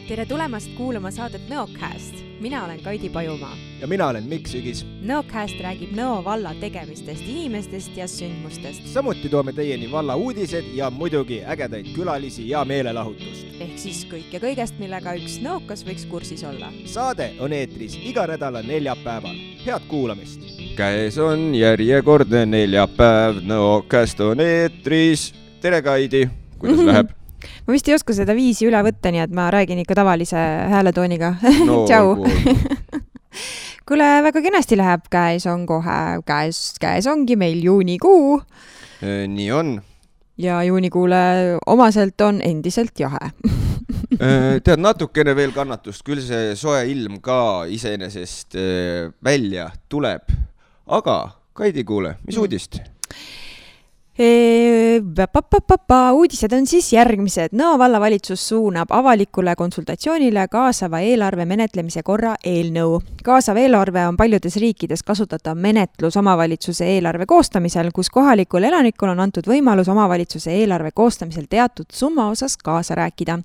Tere tulemast kuulama saadet Nõocast. Mina olen Kaidi Pajumaa. Ja mina olen Mikk Sügis. Nõocast räägib Nõo valla tegemistest, inimestest ja sündmustest. Samuti toome teieni valla uudised ja muidugi ägedaid külalisi ja meelelahutust. Ehk siis kõik ja kõigest, millega üks nõokas võiks kursis olla. Saade on eetris iga nädala neljapäeval. Head kuulamist! Käes on järjekordne neljapäev, Nõocast on eetris. Tere Kaidi, kuidas läheb? Ma vist ei oska seda viisi üle võtta, nii et ma räägin ikka tavalise hääletooniga. No, Tšau! Kuule, väga kenasti läheb, käes on kohe, käes ongi meil juunikuu. Nii on. Ja juunikuule omaselt on endiselt jahe. Tead, natukene veel kannatust, küll see soe ilm ka iseenesest välja tuleb. Aga, Kaidi kuule, mis uudist? Uudised on siis järgmised. Nõo vallavalitsus suunab avalikule konsultatsioonile kaasava eelarve menetlemise korra eelnõu. Kaasav eelarve on paljudes riikides kasutatav menetlus omavalitsuse eelarve koostamisel, kus kohalikul elanikul on antud võimalus omavalitsuse eelarve koostamisel teatud summa osas kaasa rääkida.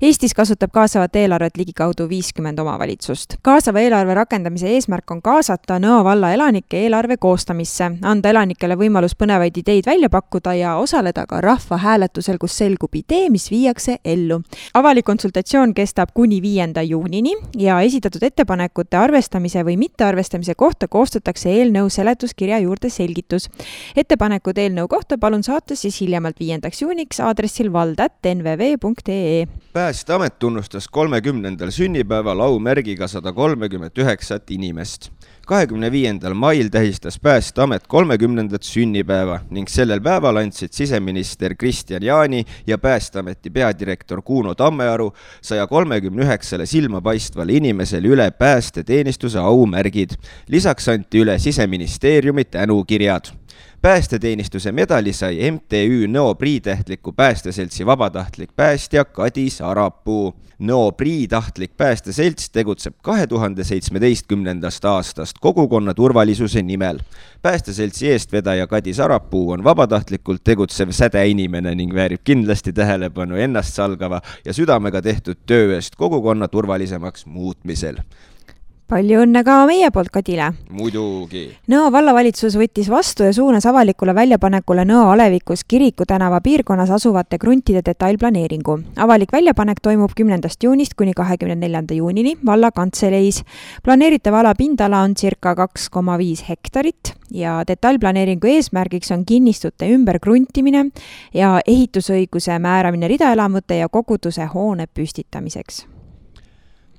Eestis kasutab kaasavat eelarvet ligikaudu 50 omavalitsust. Kaasava eelarve rakendamise eesmärk on kaasata Nõo valla elanike eelarve koostamisse, anda elanikele võimalus põnevaid ideid välja pakkuda ja osaleda ka rahva hääletusel, kus selgub idee, mis viiakse ellu. Avalik konsultatsioon kestab kuni 5. juunini ja esitatud ettepanekute arvestamise või mittearvestamise kohta koostatakse eelnõu seletuskirja juurde selgitus. Ettepanekud eelnõu kohta palun saata siis hiljemalt 5. juuniks aadressil vald@nvv.ee. Päästeamet tunnustas 30. sünnipäeval aumärgiga 139 inimest. 25. mail tähistas Päästeamet 30. sünnipäeva ning sellel päeval andsid siseminister Kristjan Jaani ja Päästeameti peadirektor Kuno Tammearu 139 silmapaistvale inimesele üle päästeteenistuse aumärgid. Lisaks anti üle Siseministeeriumi tänukirjad. Päästeteenistuse medali sai MTÜ Nõo Priitähtliku päästeseltsi vabatahtlik päästja Kadi Sarapuu. Nõo Priitahtlik päästeselts tegutseb 2017. aastast kogukonna turvalisuse nimel. Päästeseltsi eestvedaja Kadi Sarapuu on vabatahtlikult tegutsev sädeinimene ning väärib kindlasti tähelepanu ennast salgava ja südamega tehtud töö eest kogukonna turvalisemaks muutmisel. Palju õnne ka meie poolt Kadile. Muidugi. Nõo vallavalitsus võttis vastu ja suunas avalikule väljapanekule Nõo Alevikus Kiriku tänava piirkonnas asuvate kruntide detailplaneeringu. Avalik väljapanek toimub 10. juunist kuni 24. juunini valla kantseleis. Planeeritav ala pindala on circa 2,5 hektarit ja detailplaneeringu eesmärgiks on kinnistute ümber kruntimine ja ehitusõiguse määramine ridaelamute ja koguduse hoone püstitamiseks.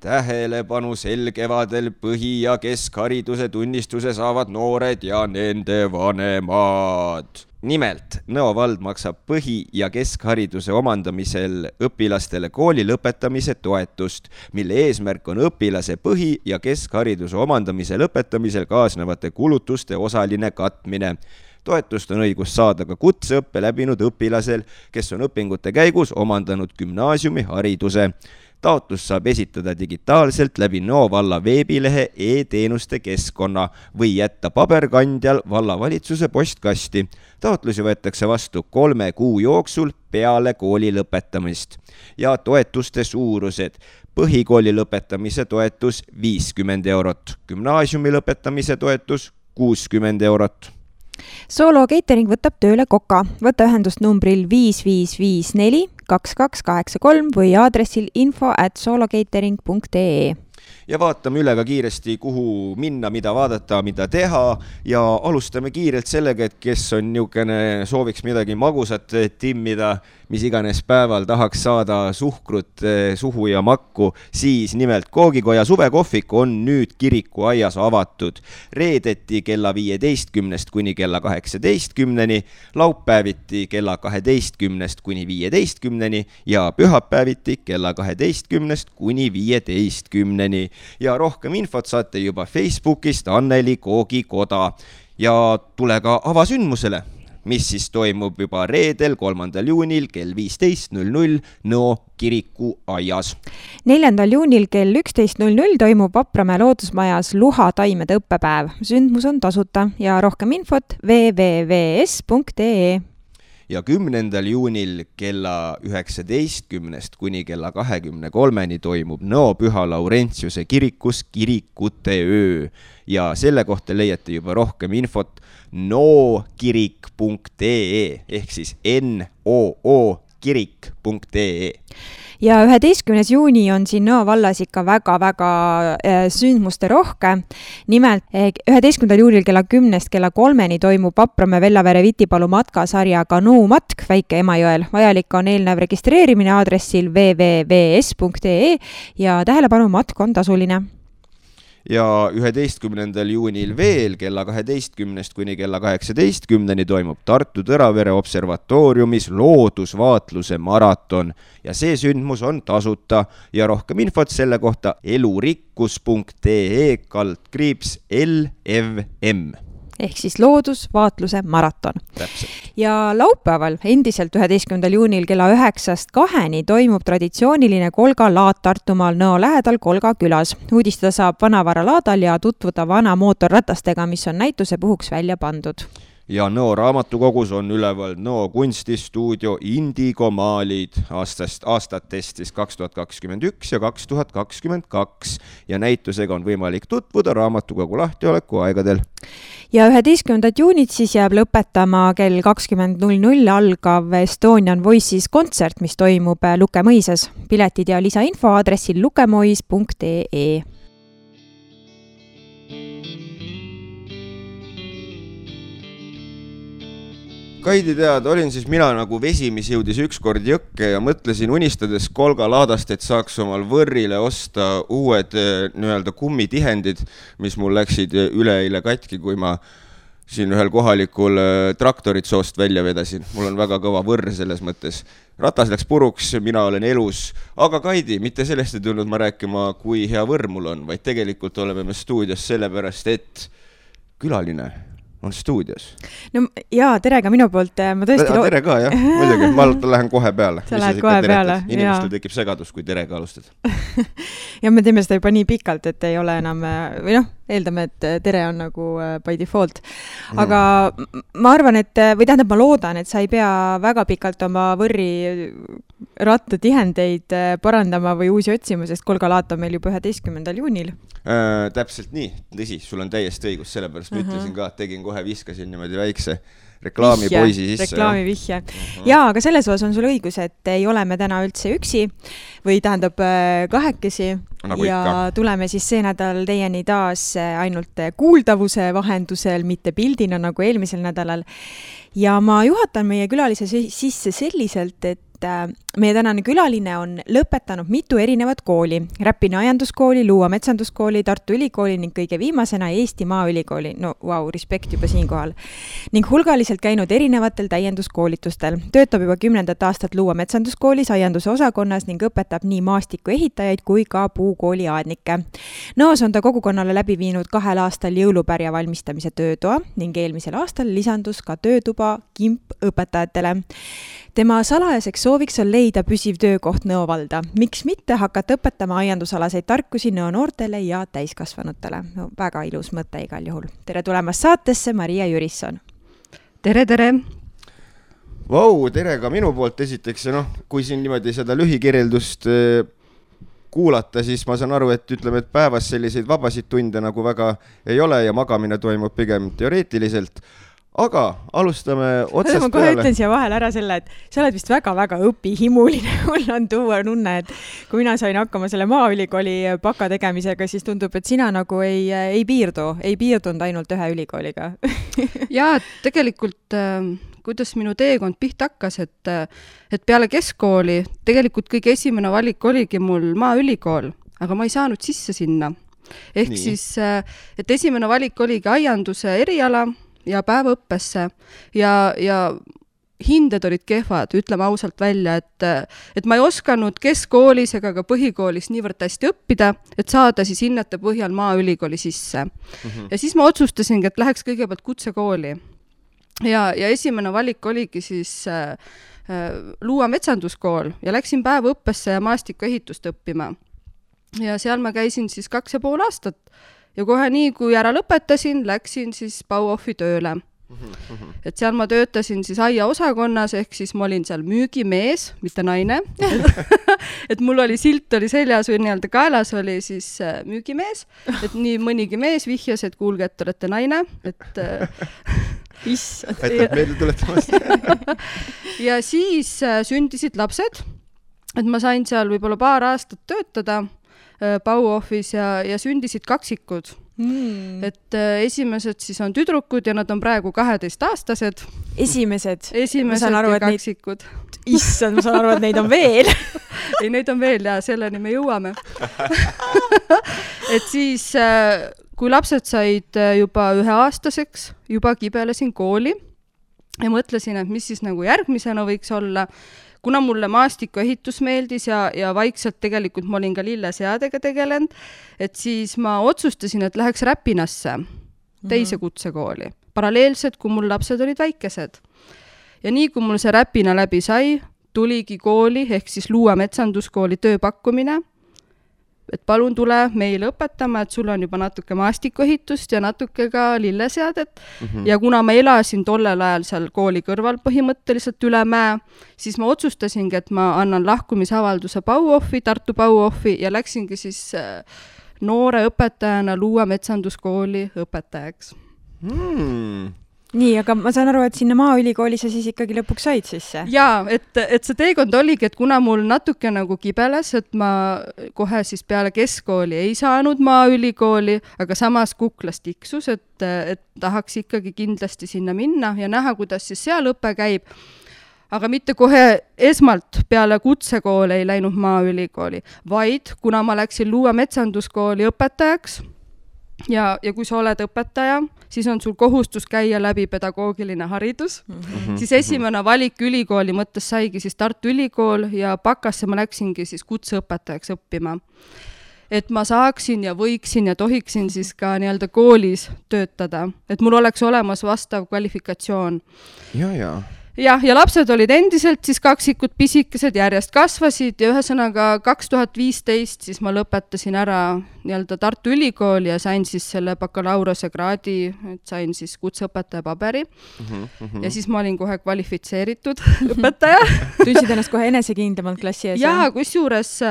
Tähelepanu sel kevadel põhi- ja keskhariduse tunnistuse saavad noored ja nende vanemad. Nimelt, Nõo vald maksab põhi- ja keskhariduse omandamisel õpilastele kooli lõpetamise toetust, mille eesmärk on õpilase põhi- ja keskhariduse omandamise lõpetamisel kaasnevate kulutuste osaline katmine. Toetust on õigus saada ka kutseõppe läbinud õpilasel, kes on õpingute käigus omandanud gümnaasiumihariduse. Taotlus saab esitada digitaalselt läbi Nõo valla veebilehe e-teenuste keskkonna või jätta paberkandjal vallavalitsuse postkasti. Taotlusi võetakse vastu 3 kuu jooksul peale kooli lõpetamist. Ja toetuste suurused. Põhikooli lõpetamise toetus 50 eurot, gümnaasiumi lõpetamise toetus 60 eurot. Solo Catering võtab tööle Koka. Võta ühendust numbril 5554 2283 või aadressil info@solocatering.ee. Ja vaatame üle ka kiiresti, kuhu minna, mida vaadata, mida teha ja alustame kiirelt sellega, et kes on niukene sooviks midagi magusat timmida, mis iganes päeval tahaks saada suhkrut suhu ja makku, siis nimelt Koogikoja suvekohvik on nüüd Kiriku aias avatud. Reedeti kella 15 kuni kella 18, laupäeviti kella 12 kuni 15 ja pühapäeviti kella 12 kuni 15. Ja rohkem infot saate juba Facebookist Anneli Koogikoda ja tule ka avasündmusele, mis siis toimub juba reedel 3. juunil kell 15.00 Nõo Kiriku aias. 4. juunil kell 11.00 toimub Vapramäe loodusmajas Luha taimede õppepäev. Sündmus on tasuta ja rohkem infot www.s.ee. ja 10. juunil kella 19 kuni kella 23 toimub Nõo Püha Laurentiuse kirikus kirikute öö ja selle kohta leiate juba rohkem infot nookirik.ee ehk siis nookirik.ee. Ja 11. juuni on siin Nõo vallas ikka väga-väga sündmuste rohke. Nimelt 11. juunil kella 10 kella 3 toimub Vapramäe Vellavere Vitipalu matkasarja kanuumatk Väike Emajõel. Vajalik on eelnev registreerimine aadressil www.es.ee ja tähelepanu, matk on tasuline. Ja 11. juunil veel kella 12 kuni kella 18 toimub Tartu Tõravere observatooriumis loodusvaatluse maraton ja see sündmus on tasuta ja rohkem infot selle kohta elurikkus.ee/LFM ehk siis loodusvaatluse maraton. Täpselt. Ja laupäeval endiselt 11. juunil kella 9-2 toimub traditsiooniline Kolga laad Tartumaal Nõo lähedal Kolga külas. Uudistada saab Vanavara laadal ja tutvuda vana mootorratastega, mis on näituse puhuks välja pandud. Ja Nõo raamatukogus on üleval Nõo kunstistuudio Indigo maalid aastatest 2021 ja 2022 ja näitusega on võimalik tutvuda raamatukogu lahtioleku aegadel. Ja 11. juunit siis jääb lõpetama kell 20.00 algav Estonian Voices kontsert, mis toimub Lukemõisas. Piletid ja lisainfo aadressil lukemois.ee. Kaidi tead, olin siis mina nagu vesi, mis jõudis ükskord jõkke ja mõtlesin unistades Kolga laadast, et saaks omal võrrile osta uued nii-öelda kummitihendid, mis mul läksid üleeile katki, kui ma siin ühel kohalikul traktorit soost välja vedasin. Mul on väga kõva võrr selles mõttes. Ratas läks puruks, mina olen elus. Aga Kaidi, mitte sellest ei tulnud ma rääkima, kui hea võrr mul on, vaid tegelikult oleme me stuudios sellepärast, et külaline on stuudios. No jaa, tere ka minu poolt. Ma tõesti tere ka, jah. Muidugi, ma lähen kohe peale. Sa lähed kohe peale. Inimestel tekib segadus, kui terega alustad. Ja me teeme seda juba nii pikalt, et ei ole enam, või noh, eeldame, et tere on nagu by default. Aga ma arvan, et, või tähendab, ma loodan, et sa ei pea väga pikalt oma võrri rattatihendeid parandama või uusi otsima, sest Kolga laat on meil juba 11. juunil. Täpselt nii, tõsi, sul on täiesti õigus, sellepärast ma ütlesin ka, et tegin kohe, viskasin niimoodi väikse reklaamipoisi sisse. Reklaamivihje. Jaa, aga selles osas on sul õigus, et ei ole me täna üldse üksi või tähendab kahekesi nagu ja ikka. Tuleme siis see nädal teieni taas ainult kuuldavuse vahendusel, mitte pildina nagu eelmisel nädalal. Ja ma juhatan meie külalise sisse selliselt, et meie tänane külaline on lõpetanud mitu erinevat kooli. Räpina ajanduskooli, Luua metsanduskooli, Tartu Ülikooli ning kõige viimasena Eesti Maaülikooli. No vau, respekt juba siinkohal. Ning hulgaliselt käinud erinevatel täienduskoolitustel. Töötab juba 10. aastat Luua metsanduskoolis aianduse osakonnas ning õpetab nii maastiku ehitajaid kui ka puukooli aadnikke. Nõos on ta kogukonnale läbi viinud 2 aastal jõulupärja valmistamise töötoa ning eelmisel aastal lisandus ka töötuba kimp õpetajatele. Tema salajaseks sooviks on leida püsiv töökoht Nõo valda. Miks mitte hakata õpetama aiandusalaseid tarkusi Nõo noortele ja täiskasvanutele? No, väga ilus mõte igal juhul. Tere tulemast saatesse, Maria Jürisson. Tere, tere! Vau, tere ka minu poolt esiteks. Ja kui siin niimoodi seda lühikirjeldust kuulata, siis ma saan aru, et ütleme, et päevas selliseid vabasid tunde nagu väga ei ole ja magamine toimub pigem teoreetiliselt. Aga alustame otsast peale. Ma kohe ütlen siia vahel ära selle, et sa oled vist väga-väga õpihimuline. Mul on tuua nunne, et kui mina sain hakkama selle Maaülikooli baka tegemisega, siis tundub, et sina nagu ei piirdunud ainult ühe ülikooliga. Jaa, tegelikult kuidas minu teekond pihta hakkas, et peale keskkooli tegelikult kõige esimene valik oligi mul Maaülikool, aga ma ei saanud sisse sinna. Ehk siis, et esimene valik oligi aianduse eriala ja päevaõppesse ja hinded olid kehvad, ütleme ausalt välja, et ma ei osanud keskkoolis ega ka põhikoolis niivõrd hästi õppida, et saada siis hinnete põhjal Maaülikooli sisse. Ja siis ma otsustasingi, et läheks kõigepealt kutsekooli. Ja esimene valik oligi siis Luua metsanduskool ja läksin päevaõppesse ja maastikuehitust õppima. Ja seal ma käisin siis 2,5 aastat. Ja kohe nii, kui ära lõpetasin, läksin siis Bauhofi tööle. et seal ma töötasin siis aiaosakonnas, ehk siis ma olin seal müügimees, mitte naine. et mul oli silt oli seljas või nii-öelda kaelas oli siis müügimees, et nii mõnigi mees vihjas, et kuulge, et olete naine, et issand. aitab meelde tuletamast. ja siis sündisid lapsed, et ma sain seal võib-olla paar aastat töötada Bauhofis ja sündisid kaksikud. Et esimesed siis on tüdrukud ja nad on praegu 12-aastased. Esimesed ja kaksikud. Issand, ma saan aru, et neid on veel. ei, neid on veel ja selleni me jõuame. et siis, kui lapsed said juba 1-aastaseks, juba kibelesin kooli ja mõtlesin, et mis siis nagu järgmisena võiks olla. Kuna mulle maastikuehitus meeldis ja vaikselt tegelikult ma olin ka lilleseadega tegelenud, et siis ma otsustasin, et läheks Räpinasse teise kutsekooli. Paralleelselt, kui mul lapsed olid väikesed. Ja nii, kui mul see Räpina läbi sai, tuligi kooli, ehk siis Luua metsanduskooli tööpakkumine, et palun tule meile õpetama, et sul on juba natuke maastikuehitust ja natuke ka lilleseadet. Ja kuna ma elasin tollel ajal seal kooli kõrval põhimõtteliselt üle mäe, siis ma otsustasingi, et ma annan lahkumisavalduse Bauhofi, Tartu Bauhofi ja läksingi siis noore õpetajana Luua metsanduskooli õpetajaks. Nii, aga ma saan aru, et sinna Maaülikooli sa siis ikkagi lõpuks said sisse? Jaa, et see teekond oligi, et kuna mul natuke nagu kibeles, et ma kohe siis peale keskkooli ei saanud Maaülikooli, aga samas kuklas tiksus, et tahaks ikkagi kindlasti sinna minna ja näha, kuidas siis seal õpe käib. Aga mitte kohe esmalt peale kutsekooli ei läinud Maaülikooli, vaid kuna ma läksin Luua metsanduskooli õpetajaks, ja kui sa oled õpetaja, siis on sul kohustus käia läbi pedagoogiline haridus. Siis esimene valik ülikooli mõttes saigi siis Tartu Ülikool ja bakasse ma läksingi siis kutseõpetajaks õppima. Et ma saaksin ja võiksin ja tohiksin siis ka nii-öelda koolis töötada, et mul oleks olemas vastav kvalifikatsioon. Ja lapsed olid endiselt siis kaksikud pisikesed, järjest kasvasid ja ühesõnaga 2015 siis ma lõpetasin ära nii-öelda Tartu Ülikooli ja sain siis selle bakalaureuse kraadi, et sain siis kutseõpetaja paberi. Ja siis ma olin kohe kvalifitseeritud õpetaja. Tundsid ennast kohe enesekindlamalt klassi ees? Jaa, kusjuures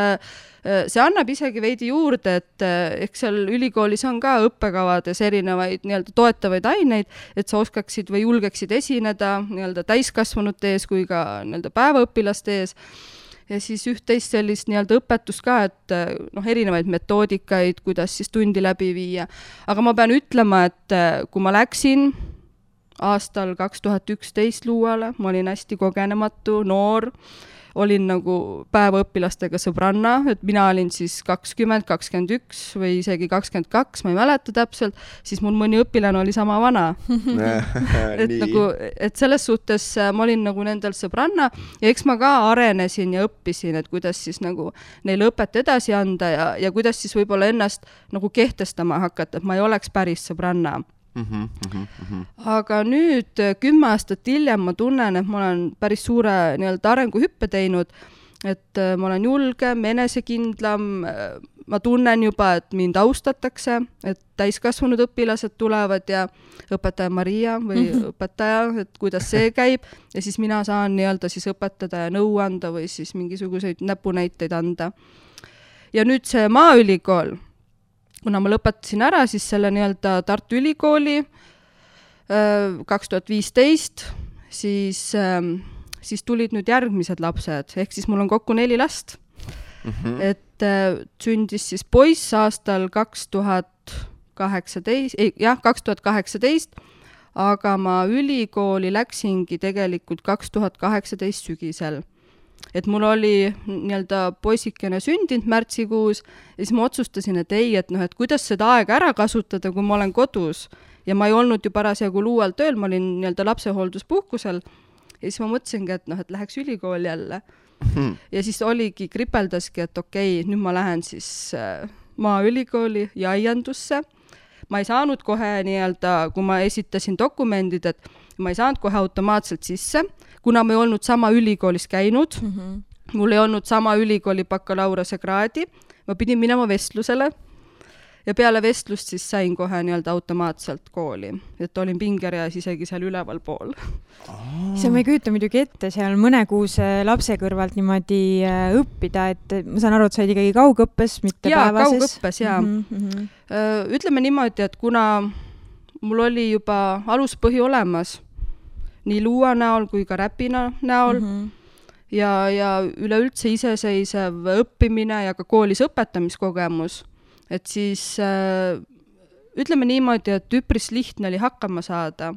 see annab isegi veidi juurde, et eks seal ülikoolis on ka õppekavades erinevaid nii-öelda toetavaid aineid, et sa oskaksid või julgeksid esineda nii-öelda täiskasvanute ees kui ka nii-öelda päevaõpilaste ees. Ja siis üht-teist sellist nii-öelda õpetust ka, et erinevaid metoodikaid, kuidas siis tundi läbi viia. Aga ma pean ütlema, et kui ma läksin aastal 2011 Luuale, ma olin hästi kogenematu, noor, olin nagu päevaõpilastega sõbranna, et mina olin siis 20, 21 või isegi 22, ma ei mäleta täpselt, siis mul mõni õpilane oli sama vana. et selles suhtes ma olin nagu nendel sõbranna ja eks ma ka arenesin ja õppisin, et kuidas siis nagu neile õpet edasi anda ja kuidas siis võib-olla ennast nagu kehtestama hakata, et ma ei oleks päris sõbranna. Aga nüüd 10 aastat hiljem ma tunnen, et ma olen päris suure nii-öelda arenguhüppe teinud, et ma olen julgem, enesekindlam, ma tunnen juba, et mind austatakse, et täiskasvanud õpilased tulevad ja õpetaja Maria või õpetaja, et kuidas see käib ja siis mina saan nii-öelda siis õpetada ja nõu anda või siis mingisuguseid näpunäiteid anda. Ja nüüd see Maaülikool, kuna ma lõpetasin ära siis selle nii-öelda Tartu Ülikooli 2015, siis tulid nüüd järgmised lapsed, ehk siis mul on kokku 4 last. Et sündis siis poiss aastal 2018, aga ma ülikooli läksingi tegelikult 2018 sügisel. Et mul oli nii-öelda poisikene sündinud märtsikuus ja siis ma otsustasin, et ei, et kuidas seda aega ära kasutada, kui ma olen kodus ja ma ei olnud ju parasjagu Luual tööl, ma olin nii-öelda lapsehoolduspuhkusel ja siis ma mõtlesingi, et läheks ülikooli jälle. Ja siis oligi, kripeldaski, et okei, nüüd ma lähen siis Maaülikooli ja aiandusse. Ma ei saanud kohe nii-öelda, kui ma esitasin dokumendid, et ma ei saanud kohe automaatselt sisse, kuna ma ei olnud sama ülikoolis käinud, mul ei olnud sama ülikooli bakalaureuse kraadi, ma pidin minema vestlusele ja peale vestlust siis sain kohe nii-öelda automaatselt kooli, et olin pingereas isegi seal üleval pool. See ma ei kujuta muidugi ette seal mõnekuuse lapse kõrvalt niimoodi õppida, et ma saan aru, et sa olid ikkagi kaugõppes, mitte päevases. Kaugõppes, jaa. Ütleme niimoodi, et kuna mul oli juba aluspõhi olemas, nii luua näol kui ka räpina näol, ja üleüldse iseseisev õppimine ja ka koolis õpetamiskogemus, et siis ütleme niimoodi, et üpris lihtne oli hakkama saada.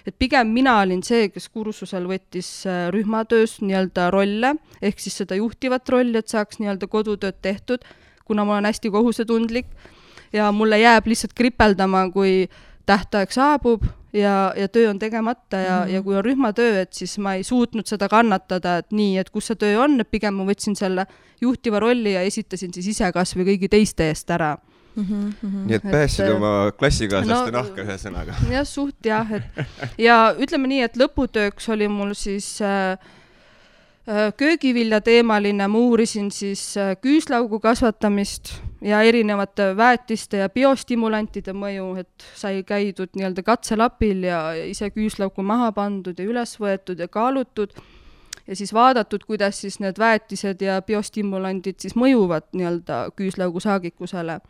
Et pigem mina olin see, kes kursusel võttis rühmatöös nii-öelda rolle, ehk siis seda juhtivat rolli, et saaks nii-öelda kodutööd tehtud, kuna ma olen hästi kohusetundlik ja mulle jääb lihtsalt kripeldama, kui tähtaeg saabub ja töö on tegemata ja kui on rühmatöö, et siis ma ei suutnud seda kannatada, et nii, et kus see töö on, et pigem ma võtsin selle juhtiva rolli ja esitasin siis ise kas või kõigi teiste eest ära. Nii et pääsid oma klassikaaslaste nahka ühe sõnaga. Jah, suht jah. Ja ütleme nii, et lõputööks oli mul siis köögivilja teemaline, ma uurisin siis küüslaugu kasvatamist ja erinevate väetiste ja biostimulantide mõju, et sai käidud nii-öelda katselapil ja ise küüslaugu maha pandud ja üles võetud ja kaalutud ja siis vaadatud, kuidas siis need väetised ja biostimulandid siis mõjuvad nii-öelda küüslaugu saagikusele.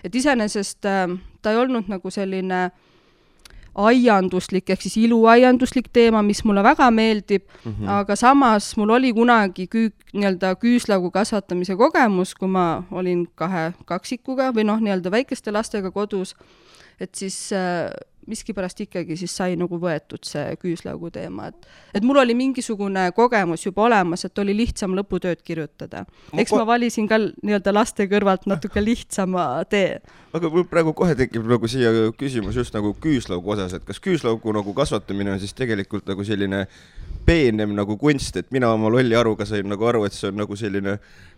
Et iseenesest ta ei olnud nagu selline aianduslik, ehk siis iluaianduslik teema, mis mulle väga meeldib, aga samas mul oli kunagi nii-öelda küüslaugu kasvatamise kogemus, kui ma olin 2 kaksikuga või nii-öelda väikeste lastega kodus, et siis miskipärast ikkagi siis sai nagu võetud see küüslaugu teema. Et mul oli mingisugune kogemus juba olemas, et oli lihtsam lõputööd kirjutada. Eks ma valisin ka nii-öelda laste kõrvalt natuke lihtsama tee. Aga mul praegu kohe tekib nagu siia küsimus just nagu küüslaugu osas, et kas küüslaugu nagu kasvatamine on siis tegelikult nagu selline peenem nagu kunst, et mina oma lolli aruga sain nagu aru, et see on nagu selline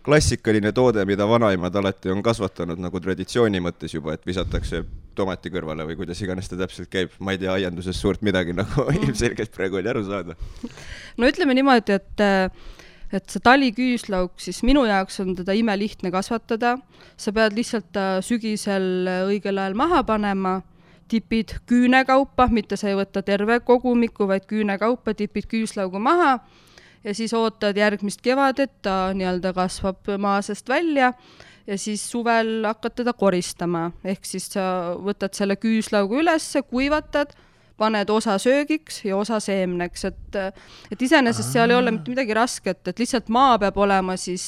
klassikaline toode, mida vanaimad alati on kasvatanud nagu traditsiooni mõttes juba, et visatakse tomati kõrvale või kuidas iganes ta täpselt käib. Ma ei tea aianduses suurt midagi, nagu ilmselgelt praegu oli aru saada. No ütleme niimoodi, et see taliküüslauk, siis minu jaoks on teda imelihtne kasvatada. Sa pead lihtsalt sügisel õigel ajal maha panema, tipid küünekaupa, mitte sa ei võta terve kogumiku, vaid küünekaupa tipid küüslaugu maha ja siis ootad järgmist kevadet, ta nii-öelda kasvab maa seest välja ja siis suvel hakkad teda koristama. Ehk siis sa võtad selle küüslaugu üles, kuivatad, paned osa söögiks ja osa seemneks, et iseenesest seal ei ole mitte midagi rasket, et lihtsalt maa peab olema siis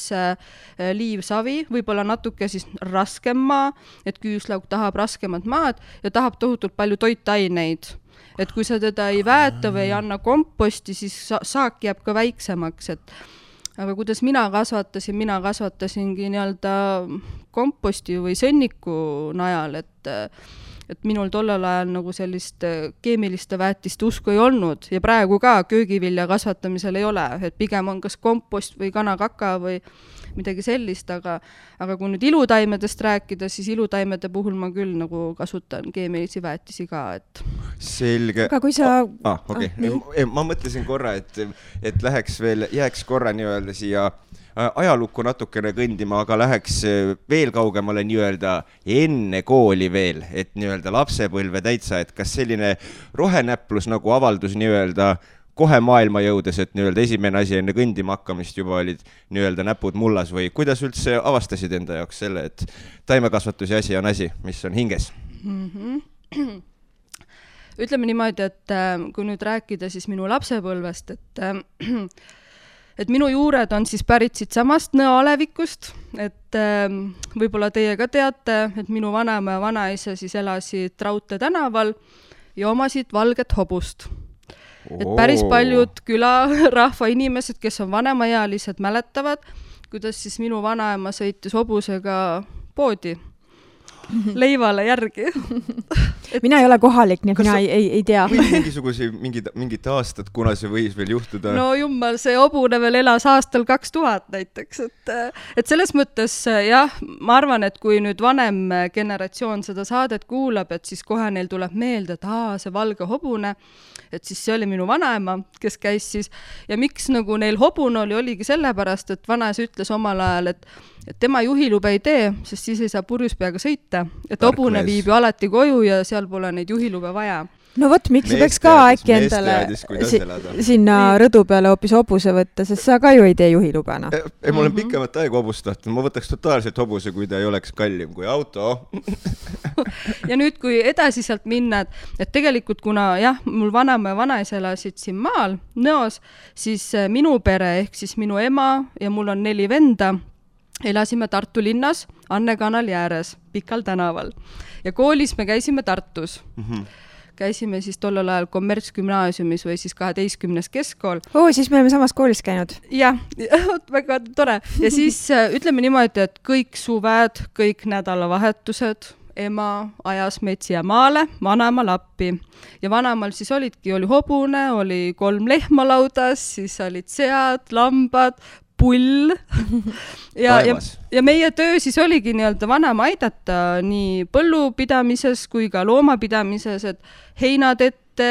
liivsavi, võib-olla natuke siis raskem maa, et küüslauk tahab raskemat maad ja tahab tohutult palju toitaineid. Et kui sa teda ei väeta või ei anna komposti, siis saak jääb ka väiksemaks, aga kuidas mina kasvatasingi nii-öelda komposti või sõnniku najal, et minul tollel ajal nagu sellist keemiliste väetiste usku ei olnud ja praegu ka köögivilja kasvatamisel ei ole, et pigem on kas kompost või kanakaka või midagi sellist, aga kui nüüd ilutaimedest rääkida, siis ilutaimede puhul ma küll nagu kasutan keemilisi väetisi ka, et selge. Aga kui sa... Ma mõtlesin korra, et jääks korra nii-öelda siia ajalukku natukene kõndima, aga läheks veel kaugemale nii-öelda enne kooli veel, et nii-öelda lapsepõlve täitsa, et kas selline rohenäplus nagu avaldus nii-öelda kohe maailma jõudes, et nii-öelda esimene asi enne kõndima hakkamist juba olid nii-öelda näpud mullas või kuidas üldse avastasid enda jaoks selle, et taimekasvatuse asi on asi, mis on hinges? Ütleme niimoodi, et kui nüüd rääkida siis minu lapsepõlvest, et minu juured on siis pärit siit samast Nõo-Alevikust, et võib-olla teie ka teate, et minu vanaema ja vanaisa siis elasid Raudtee tänaval ja omasid valget hobust. Et päris paljud külarahva inimesed, kes on vanemaealised, mäletavad, kuidas siis minu vanaema sõitis hobusega poodi leivale järgi. Mina ei ole kohalik, nii et mina ei tea. Mingid aastad, kuna see võis veel juhtuda? No jummal, see hobune veel elas aastal 2000 näiteks. Et selles mõttes, jah, ma arvan, et kui nüüd vanem generatsioon seda saadet kuulab, et siis kohe neil tuleb meelde, et see valge hobune, et siis see oli minu vanaema, kes käis siis. Ja miks nagu neil hobune oligi sellepärast, et vanaisa ütles omal ajal, et tema juhilube ei tee, sest siis ei saa purjus peaga sõita. Et Tark hobune mees. viib ju alati koju ja seal pole neid juhilube vaja. no vot, miks sa peaks ka äkki endale sinna rõdu peale hoopis hobuse võtta, sest sa ka ju ei tee juhilubena. Ei, mul on pikemat aega hobust tahtnud, ma võtaks totaalselt hobuse, kui ta ei oleks kallim kui auto. Ja nüüd, kui edasi sealt minna, et tegelikult kuna jah, mul vanaema ja vanaisa elasid siin maal, Nõos, siis minu pere ehk siis minu ema ja mul on 4 venda, elasime Tartu linnas Anne kanali ääres, Pikal tänaval. Ja koolis me käisime Tartus. Käisime siis tollel ajal kommertsgümnaasiumis või siis 12. keskkool. Siis me oleme samas koolis käinud. Jah, väga tore. Ja siis ütleme niimoodi, et kõik suved, kõik nädalavahetused, ema ajas meid siia maale, vanaema lappi. Ja vanaemal siis oli hobune, oli 3 lehma laudas, siis olid sead, lambad, pull ja meie töö siis oligi nii-öelda vanaema aidata nii põllupidamises kui ka loomapidamises, et heinatette,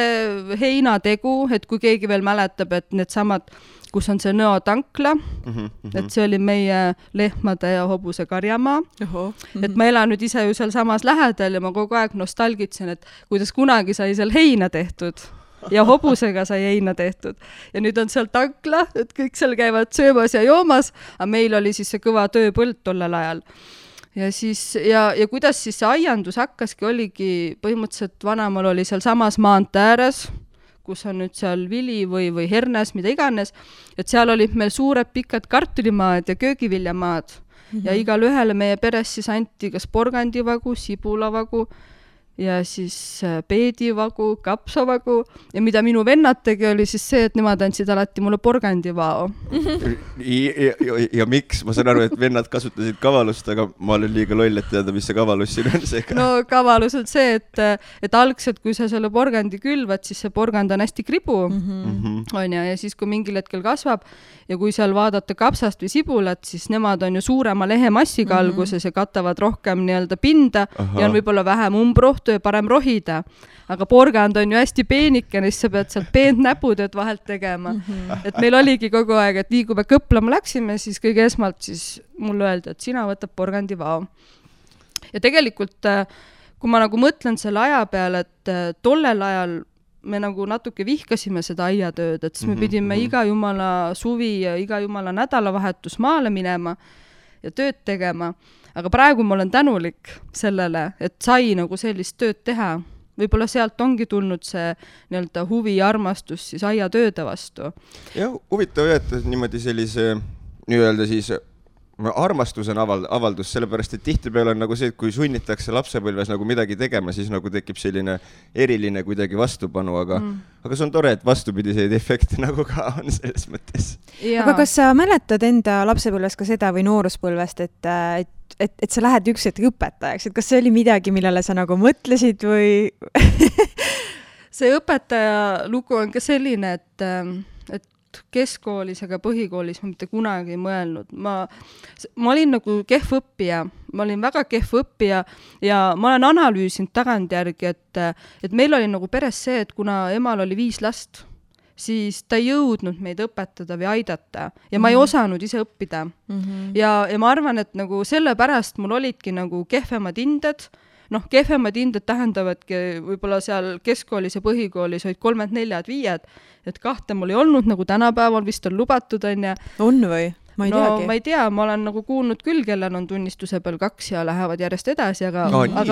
heinategu, et kui keegi veel mäletab, et need samad, kus on see Nõo tankla, et see oli meie lehmade ja hobuse karjamaa. Et ma elan nüüd ise ju seal samas lähedal ja ma kogu aeg nostalgitsen, et kuidas kunagi sai seal heina tehtud. Ja hobusega sai heina tehtud. Ja nüüd on seal tankla, et kõik seal käivad söömas ja joomas, aga meil oli siis see kõva tööpõld tollel ajal. Ja siis, ja kuidas siis see aiandus hakkaski, oligi põhimõtteliselt vanaemal oli seal samas maantee ääres, kus on nüüd seal vili või hernes, mida iganes, et seal olid meil suured pikad kartulimaad ja köögiviljamaad. Ja igal ühele meie peres siis anti kas porgandivagu, sibulavagu, ja siis peedivagu, kapsavagu ja mida minu vennad tegi, oli siis see, et nemad andsid alati mulle porgandivao. Ja miks? Ma saan aru, et vennad kasutasid kavalust, aga ma olen liiga loll, et teada, mis see kavalus siin on seega. No kavalus on see, et algselt, kui sa selle porgandi külvad, siis see porgand on hästi kribu, on ja siis kui mingil hetkel kasvab ja kui seal vaadata kapsast või sibulat, siis nemad on ju suurema lehemassiga alguses ja katavad rohkem nii-öelda pinda ja on võib-olla vähem umbrohtu ja parem rohida. Aga porgand on ju hästi peenikene, siis sa pead sealt peent näputööd vahelt tegema. Et meil oligi kogu aeg, et nii kui me kõplama läksime, siis kõige esmalt siis mulle öeldi, et sina võtab porgandivao. Ja tegelikult, kui ma nagu mõtlen selle aja peale, et tollel ajal me nagu natuke vihkasime seda aiatööd, et siis me pidime iga jumala suvi ja iga jumala nädalavahetus maale minema ja tööd tegema. Aga praegu ma olen tänulik sellele, et sai nagu sellist tööd teha. Võib-olla sealt ongi tulnud see nii-öelda huvi ja armastus siis aiatööde vastu. Ja huvitav, et niimoodi sellise nii-öelda siis armastus on avaldus, sellepärast, et tihtipeale on nagu see, et kui sunnitakse lapsepõlves nagu midagi tegema, siis nagu tekib selline eriline kuidagi vastupanu, aga see on tore, et vastupidiseid efekte nagu ka on selles mõttes. Aga kas sa mäletad enda lapsepõlves ka seda või nooruspõlvest, et sa lähed üks hetk õpetajaks, et kas see oli midagi, millele sa nagu mõtlesid või? See õpetaja lugu on ka selline, et keskkoolis, aga põhikoolis ma mitte kunagi ei mõelnud. Ma olin nagu kehv õppija, ma olin väga kehv õppija ja ma olen analüüsinud tagantjärgi, et meil oli nagu peres see, et kuna emal oli 5 last, siis ta ei jõudnud meid õpetada või aidata ja ma ei osanud ise õppida. Ja ma arvan, et nagu sellepärast mul olidki nagu kehvemad hinded. Kehvemad hinded tähendavadki võib-olla seal keskkoolis ja põhikoolis olid 3-4-5, et 2 mul ei olnud, nagu tänapäeval vist on lubatud, on ja. On või? Ma ei teagi. Ma ei tea, ma olen nagu kuulnud küll, kellel on tunnistuse peal 2 ja lähevad järjest edasi, aga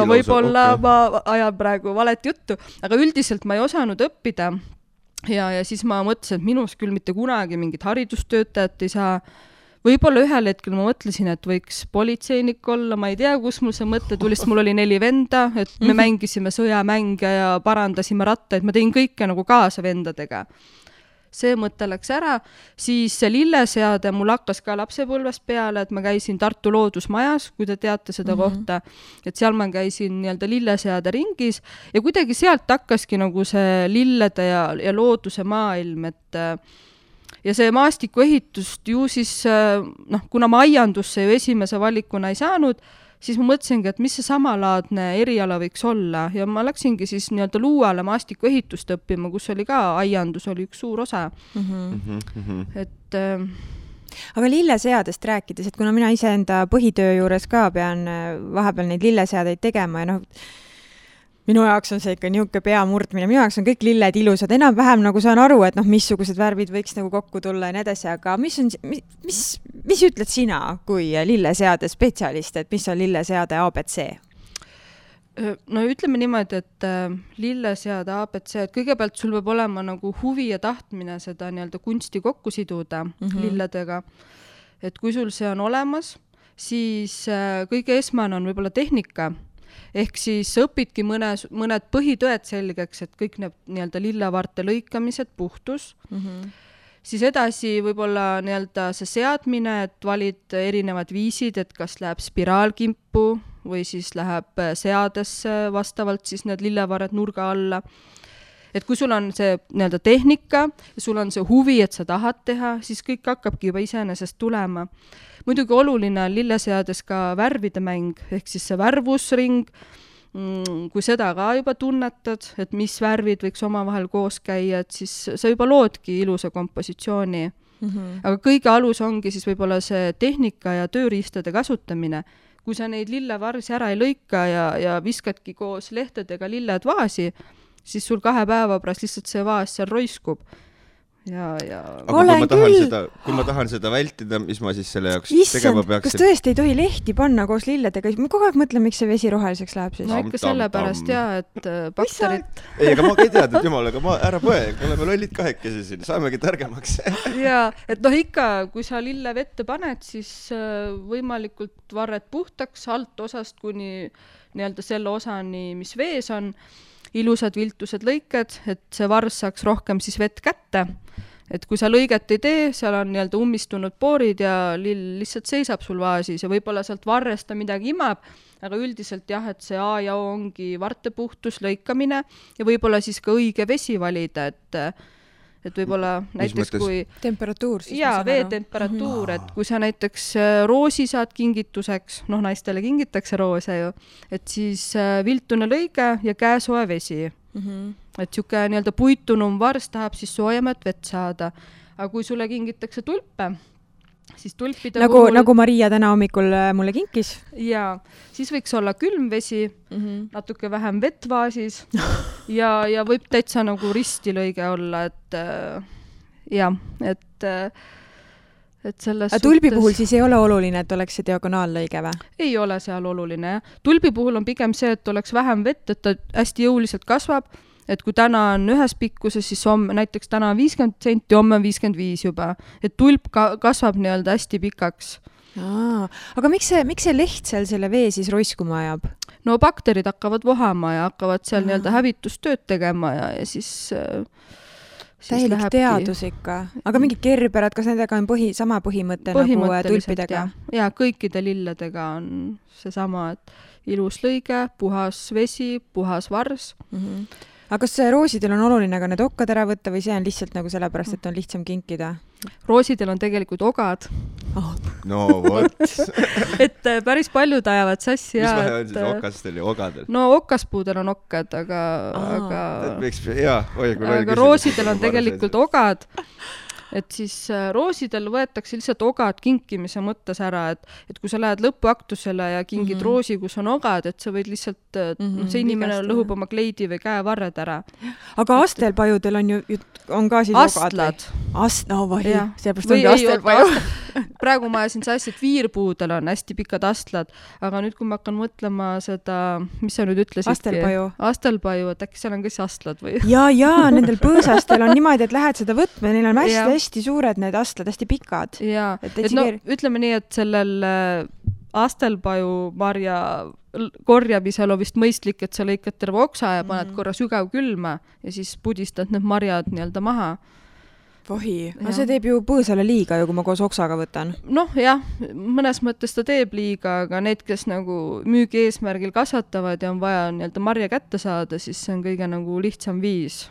võib-olla ma ajan praegu valet juttu, aga üldiselt ma ei osanud õppida ja siis ma mõtlesin, et minus küll mitte kunagi mingit haridustöötajat ei saa. Võib-olla ühel hetkel ma mõtlesin, et võiks politseinik olla, ma ei tea, kus mul see mõte tuli, sest mul oli 4 venda, et me mängisime sõjamänge ja parandasime rattaid, ma tegin kõike nagu kaasa vendadega. See mõte läks ära, siis see lilleseade mul hakkas ka lapsepõlvest peale, et ma käisin Tartu loodusmajas, kui te teate seda kohta, et seal ma käisin nii-öelda lilleseade ringis ja kuidagi sealt hakkaski nagu see lillede ja looduse maailm, et ja see maastikuehitust ju siis, kuna ma aiandusse ju esimese valikuna ei saanud, siis ma mõtlesingi, et mis see samalaadne eriala võiks olla ja ma läksingi siis nii-öelda Luuale maastikuehitust õppima, kus oli ka aiandus, oli üks suur osa. Et aga lilleseadest rääkides, et kuna mina iseenda põhitöö juures ka pean vahepeal neid lilleseadeid tegema ja minu jaoks on see ikka niisugune pea murdmine, minu jaoks on kõik lilled ilusad, enam-vähem nagu saan aru, et missugused värvid võiks nagu kokku tulla ja nii edasi, aga mis ütled sina kui lilleseade spetsialist, et mis on lilleseade ABC? No ütleme niimoodi, et lilleseade ABC, et kõigepealt sul peab olema nagu huvi ja tahtmine seda nii-öelda kunsti kokku siduda lilledega. Et kui sul see on olemas, siis kõige esmane on võib-olla tehnika. Ehk siis õpidki mõned põhitõed selgeks, et kõik need nii-öelda lillevarte lõikamised, puhtus. Siis edasi võib-olla nii-öelda see seadmine, et valid erinevad viisid, et kas läheb spiraalkimpu või siis läheb seadesse vastavalt siis need lillevared nurga alla. Et kui sul on see nii-öelda tehnika ja sul on see huvi, et sa tahad teha, siis kõik hakkabki juba iseenesest tulema. Muidugi oluline on lilleseades ka värvide mäng, ehk siis see värvusring, kui seda ka juba tunnetad, et mis värvid võiks omavahel koos käia, et siis sa juba loodki ilusa kompositsiooni. Aga kõige alus ongi siis võib-olla see tehnika ja tööriistade kasutamine. Kui sa neid lillevarsi ära ei lõika ja viskadki koos lehtedega lilled vaasi, siis sul 2 päeva pärast lihtsalt see vaas seal roiskub. Aga kui ma tahan seda vältida, mis ma siis selle jaoks tegema peaksin? Kas tõesti ei tohi lehti panna koos lilledega? Ma kogu aeg mõtlen, miks see vesi roheliseks läheb siis. No ikka sellepärast et bakterid... Ei, aga ma ei teadnud jumalaga, ära põe, oleme lollid kahekesi siin, saamegi targemaks. Et ikka, kui sa lille vette paned, siis võimalikult varred puhtaks alt osast kuni nii-öelda selle osani, mis vees on, ilusad viltused lõiked, et see vars saaks rohkem siis vett kätte. Et kui sa lõiget ei tee, seal on nii-öelda ummistunud poorid ja lill lihtsalt seisab sul vaasis ja võib-olla sealt varresta midagi imab, aga üldiselt jah, et see A ja O ongi vartepuhtus, lõikamine ja võib-olla siis ka õige vesi valida, et võib-olla näiteks kui... Temperatuur siis? Jaa, veetemperatuur, et kui sa näiteks roosi saad kingituseks, naistele kingitakse roose ju, et siis viltune lõige ja käesoe vesi. Et siuke nii-öelda puitunum vars tahab siis soojemat vett saada. Aga kui sulle kingitakse tulpe, siis tulpide nagu Maria täna hommikul mulle kinkis. Ja, siis võiks olla külmvesi, natuke vähem vett vaasis ja võib täitsa nagu ristilõige olla, et selles tulbi puhul siis ei ole oluline, et oleks see diagonaallõige või? Ei ole seal oluline, jah. Tulbi puhul on pigem see, et oleks vähem vett, et ta hästi jõuliselt kasvab, et kui täna on ühes pikkuses, siis näiteks täna on 50 senti, homme on 55 juba. Et tulp kasvab nii-öelda hästi pikaks. Aga miks see leht seal selle vee siis roiskuma ajab? No bakterid hakkavad vohama ja hakkavad seal nii-öelda hävitustööd tegema ja siis täielik teadus ikka. Aga mingid kerberad, kas nendega on sama põhimõte nagu tulpidega? Ja kõikide lilledega on see sama, et ilus lõige, puhas vesi, puhas vars. Aga kas roosidel on oluline ka need okkad ära võtta või see on lihtsalt nagu sellepärast, et on lihtsam kinkida? Roosidel on tegelikult ogad. No vot. Et päris paljud ajavad sassi. Mis vahe on siis okastel ja ogadel? No okaspuudel on okkad, aga roosidel on tegelikult ogad. Et siis roosidel võetakse lihtsalt ogad kinkimise mõttes ära, et kui sa lähed lõpuaktusele ja kingid roosi, kus on ogad, et sa võid lihtsalt, see inimene lõhub oma kleidi või käevarred ära. Aga astelpajudel on ka siis astlad. Sellepärast ongi astelpaju. Praegu ma ajasin sassi, et viirpuudel on hästi pikad astlad, aga nüüd, kui ma hakkan mõtlema seda, mis sa nüüd ütlesidki? Astelpaju, et äkki seal on ka siis astlad või? Jaa, nendel põõsastel on niimoodi, et lähed seda võtma ja neil on hästi suured need astlad, hästi pikad. Jaa, ütleme nii, et sellel astelpaju marja korjamisel on vist mõistlik, et sa lõikad terve oksa ja paned korra sügav külma ja siis pudistad need marjad nii-öelda maha. Vohi, see teeb ju põõsale liiga ju, kui ma koos oksaga võtan. Jah, mõnes mõttes ta teeb liiga, aga need, kes nagu müügi eesmärgil kasvatavad ja on vaja nii-öelda marja kätte saada, siis see on kõige nagu lihtsam viis.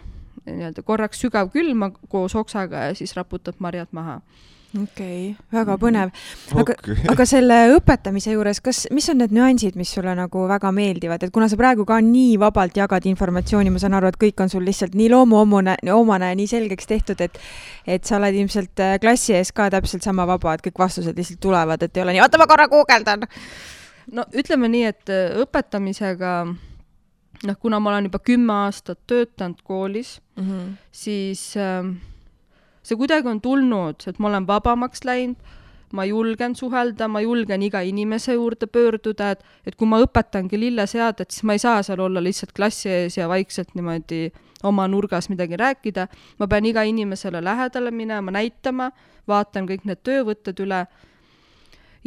Nii-öelda korraks sügav külma koos oksaga ja siis raputad marjad maha. Okei, väga põnev. Aga selle õpetamise juures, mis on need nüansid, mis sulle nagu väga meeldivad, et kuna sa praegu ka nii vabalt jagad informatsiooni, ma saan aru, et kõik on sul lihtsalt nii loomuomane, nii selgeks tehtud, et sa oled ilmselt klassi ees ka täpselt sama vaba, et kõik vastused lihtsalt tulevad, et ei ole nii, oota, ma korra guugeldan. No ütleme nii, et õpetamisega, kuna ma olen juba 10 aastat töötanud koolis, siis see kuidagi on tulnud, et ma olen vabamaks läinud, ma julgen suhelda, ma julgen iga inimese juurde pöörduda, et kui ma õpetangi lilleseadet, siis ma ei saa seal olla lihtsalt klassi ees ja vaikselt niimoodi oma nurgas midagi rääkida. Ma pean iga inimesele lähedale minema, näitama, vaatan kõik need töövõtted üle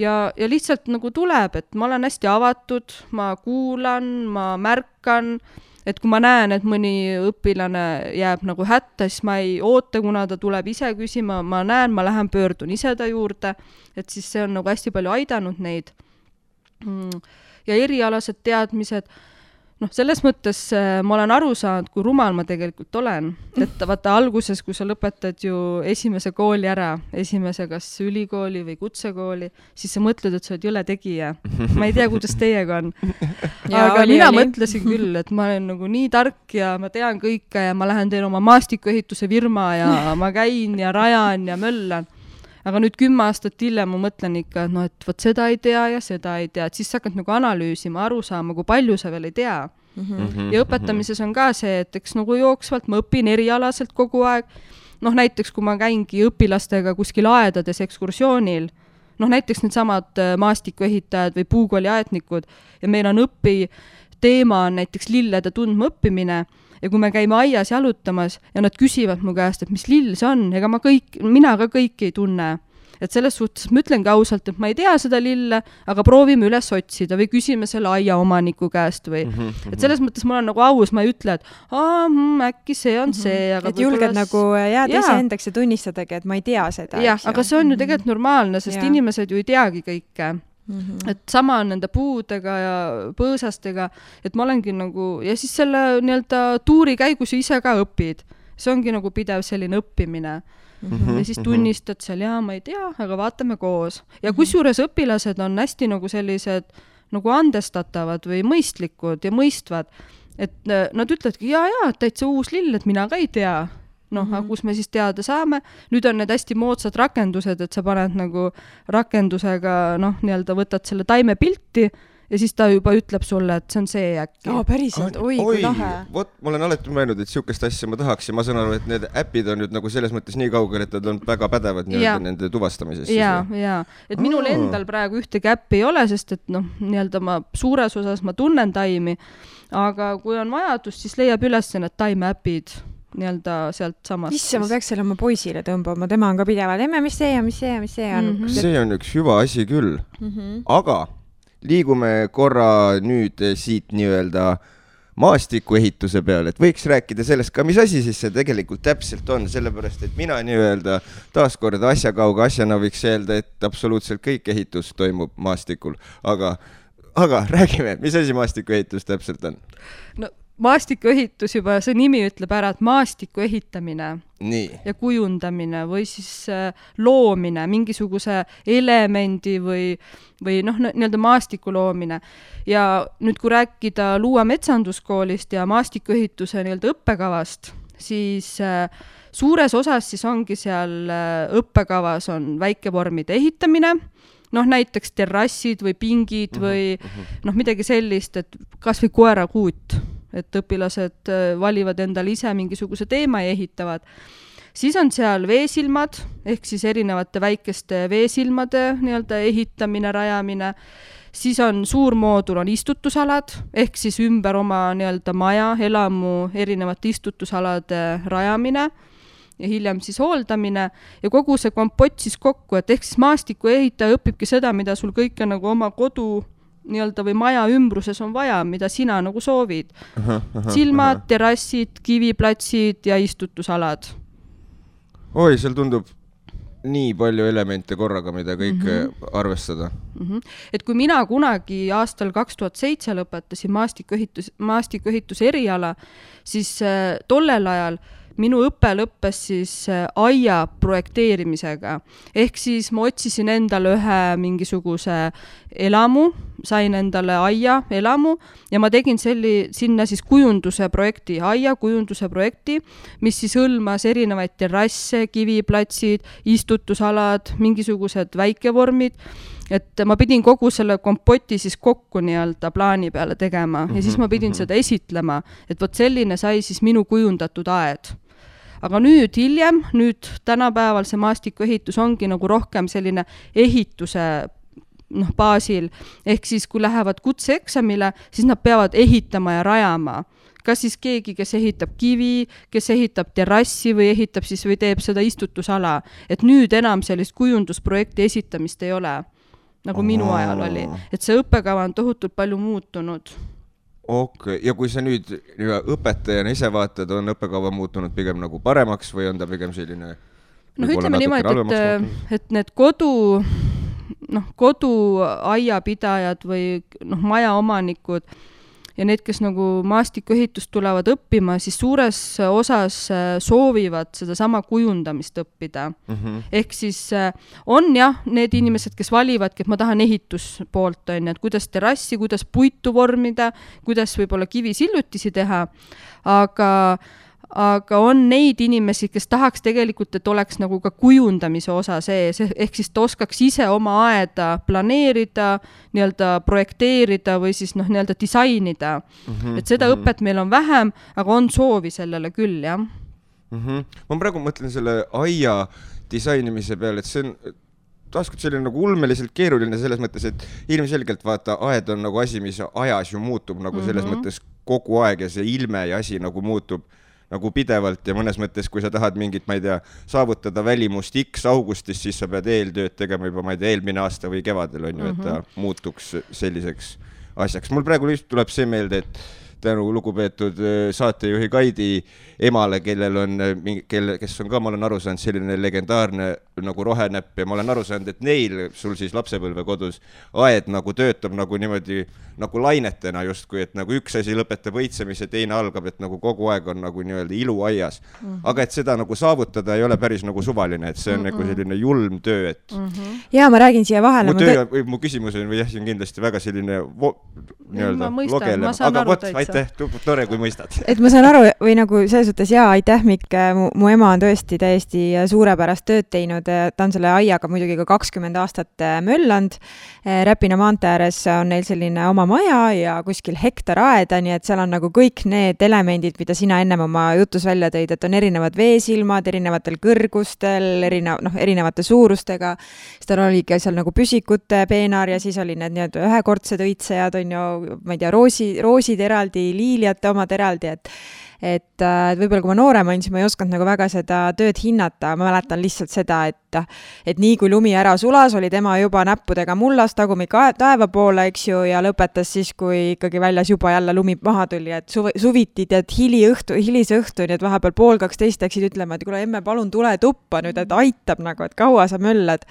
ja lihtsalt nagu tuleb, et ma olen hästi avatud, ma kuulan, ma märkan, et kui ma näen, et mõni õpilane jääb nagu hätta, siis ma ei oota, kuna ta tuleb ise küsima, ma näen, ma lähen pöördun ise ta juurde, et siis see on nagu hästi palju aidanud neid. Ja erialased teadmised, selles mõttes ma olen aru saanud, kui rumal ma tegelikult olen. Et vaata alguses, kui sa lõpetad ju esimese kooli ära, esimese kas ülikooli või kutsekooli, siis sa mõtled, et sa oled jõle tegija. Ma ei tea, kuidas teiega on. Aga mina mõtlesin küll, et ma olen nagu nii tark ja ma tean kõike ja ma lähen teen oma maastikuehituse firma ja ma käin ja rajan ja möllan. Aga nüüd 10 aastat hiljem ma mõtlen ikka, et võt seda ei tea ja seda ei tea, et siis sa hakkad nagu analüüsima, aru saama, kui palju sa veel ei tea. Ja õpetamises on ka see, et eks nagu jooksvalt ma õpin erialaselt kogu aeg. Näiteks kui ma käingi õpilastega kuskil aedades ekskursioonil, näiteks need samad maastikuehitajad või puukooliaetnikud ja meil on teema on näiteks lillede tundma õppimine. Ja kui me käime aias jalutamas ja nad küsivad mu käest, et mis lill see on, ega mina ka kõiki ei tunne. Et selles suhtes ma ütlengi ausalt, et ma ei tea seda lille, aga proovime üles otsida või küsime selle aia omaniku käest või. Et selles mõttes ma olen nagu aus, ma ei ütle, et äkki see on see. Aga et julged nagu jääda ise endaks ja tunnistadagi, et ma ei tea seda. Jah, aga see on ju tegelikult normaalne, sest inimesed ju ei teagi kõike. Et sama on nende puudega ja põõsastega, et ma olengi nagu, ja siis selle nii-öelda tuuri käigus ise ka õpid. See ongi nagu pidev selline õppimine. Ja siis tunnistad seal, ma ei tea, aga vaatame koos. Ja kusjuures õpilased on hästi nagu sellised nagu andestatavad või mõistlikud ja mõistvad, et nad ütledki, täitsa uus lill, et mina ka ei tea. Aga kus me siis teada saame. Nüüd on need hästi moodsad rakendused, et sa paned nagu rakendusega, nii-öelda võtad selle taime pilti ja siis ta juba ütleb sulle, et see on see äkki. Päriselt, kui lahe. Vot, ma olen alati mõelnud, et siukest asja ma tahaks ja ma saan aru, et need äpid on nüüd nagu selles mõttes nii kaugel, et nad on väga pädevad nende tuvastamises. Ja. Et minul endal praegu ühtegi äppi ei ole, sest et nii-öelda ma suures osas ma tunnen taimi, aga kui on vajadus, siis leiab üles need taimeäpid nii-öelda sealt samast. Isse, ma peaks selle oma poisile tõmbama, tema on ka pidevalt, mis see on. See on üks hüva asi küll. Aga liigume korra nüüd siit nii-öelda maastikuehituse peale, et võiks rääkida sellest ka, mis asi siis see tegelikult täpselt on, sellepärast, et mina nii-öelda taaskord asjakauga asjana võiks öelda, et absoluutselt kõik ehitus toimub maastikul, aga räägime, mis asi maastikuehitus täpselt on? Maastikuehitus juba, see nimi ütleb ära, et maastiku ehitamine ja kujundamine või siis loomine, mingisuguse elemendi või nii-öelda maastiku loomine. Ja nüüd, kui rääkida Luua metsanduskoolist ja maastikuehituse nii-öelda õppekavast, siis suures osas siis ongi seal õppekavas on väikevormide ehitamine, näiteks terrassid või pingid või midagi sellist, et kas või koerakuut. Et õpilased valivad endale ise mingisuguse teema ja ehitavad. Siis on seal veesilmad, ehk siis erinevate väikeste veesilmade nii-öelda ehitamine, rajamine. Siis on suur moodul on istutusalad, ehk siis ümber oma nii-öelda maja, elamu erinevate istutusalade rajamine ja hiljem siis hooldamine ja kogu see kompott siis kokku, et ehk siis maastiku ehitaja õpibki seda, mida sul kõike nagu oma kodu nii-öelda või maja ümbruses on vaja, mida sina nagu soovid. Silmad, terrassid, kiviplatsid ja istutusalad. Oi, seal tundub nii palju elemente korraga, mida kõik arvestada. Et kui mina kunagi aastal 2007 lõpetasin maastikuehituse eriala, siis tollel ajal minu õpe lõppes siis aia projekteerimisega. Ehk siis ma otsisin endale ühe mingisuguse elamu, sain endale aia elamu ja ma tegin sinna siis kujunduse projekti, aia kujunduse projekti, mis siis hõlmas erinevaid terrasse, kiviplatsid, istutusalad, mingisugused väikevormid, et ma pidin kogu selle kompoti siis kokku nii-öelda plaani peale tegema ja siis ma pidin seda esitlema, et vot selline sai siis minu kujundatud aed. Aga nüüd hiljem, tänapäeval see maastikuehitus ongi nagu rohkem selline ehituse baasil, ehk siis kui lähevad kutseeksamile, siis nad peavad ehitama ja rajama. Kas siis keegi, kes ehitab kivi, kes ehitab terrassi või ehitab siis või teeb seda istutusala, et nüüd enam sellist kujundusprojekti esitamist ei ole, nagu minu ajal oli. Et see õppekava on tohutult palju muutunud. Okay. Ja kui sa nüüd õpetajana ise vaatad, on õppekava muutunud pigem nagu paremaks või on ta pigem selline ütleme niimoodi, et need koduaiapidajad või majaomanikud ja need, kes nagu maastikuehitust tulevad õppima, siis suures osas soovivad seda sama kujundamist õppida. Ehk siis on need inimesed, kes valivadki, et ma tahan ehituspoolt, et kuidas terrassi, kuidas puitu vormida, kuidas võib-olla kivisillutisi teha, aga on neid inimesi, kes tahaks tegelikult, et oleks nagu ka kujundamise osa sees, ehk siis ta oskaks ise oma aeda planeerida, nii-öelda projekteerida või siis nii-öelda disainida. Et seda õpet meil on vähem, aga on soovi sellele küll, jah. Ma praegu mõtlen selle aia disainimise peale, et see on taaskord selline nagu ulmeliselt keeruline selles mõttes, et ilmselgelt vaata, aed on nagu asi, mis ajas ju muutub nagu selles mõttes kogu aeg ja see ilme ja asi nagu muutub nagu pidevalt ja mõnes mõttes, kui sa tahad mingit, ma ei tea, saavutada välimust X augustis, siis sa pead eeltööd tegema juba, ma ei tea, eelmine aasta või kevadel on ju, et ta muutuks selliseks asjaks. Mul praegu lihtsalt tuleb see meelde, et tänu lugupeetud saatejuhi Kaidi emale, kes on ka, ma olen aru saanud, selline legendaarne nagu rohenäpp ja ma olen aru saanud, et neil, sul siis lapsepõlve kodus, aed nagu töötab nagu niimoodi nagu lainetena justkui, et nagu üks asi lõpetab õitsemise, teine algab, et nagu kogu aeg on nagu nii-öelda ilu aias. Aga et seda nagu saavutada ei ole päris nagu suvaline, et see on nagu selline julm töö, et... Jaa, ma räägin siia vahele. Mu küsimus on, või jah, see on kindlasti väga selline logele. Aga vot, aitäh, tore, kui mõistad. Et ma saan aru, või nagu selles suhtes, jaa, aitäh, Mikk, mu ema on tõesti täiesti suurepärast tööd teinud, ta on selle aiaga muidugi ka 20 aastat möllanud. Räpina maantee ääres on neil selline oma maja ja kuskil hektar aeda, nii et seal on nagu kõik need elemendid, mida sina ennem oma jutus välja tõid, et on erinevad veesilmad, erinevatel kõrgustel, erinevate suurustega. Siis tal oligi seal nagu püsikute peenar ja siis oli need nii-öelda ühekordsed õitsejad, on ju, ma ei tea, roosid eraldi, liiliate omad eraldi, et võib-olla kui ma noorem olin, siis ma ei osanud nagu väga seda tööd hinnata, ma mäletan lihtsalt seda, et nii kui lumi ära sulas, oli tema juba näppudega mullas tagumik taeva poole, eks ju, ja lõpetas siis, kui ikkagi väljas juba jälle lumi maha tuli, et suviti tead hilise õhtu, nii et vahepeal 1:30 läksid ütlema, et kuule, emme, palun tule tuppa nüüd, et aitab nagu, et kaua sa möllad.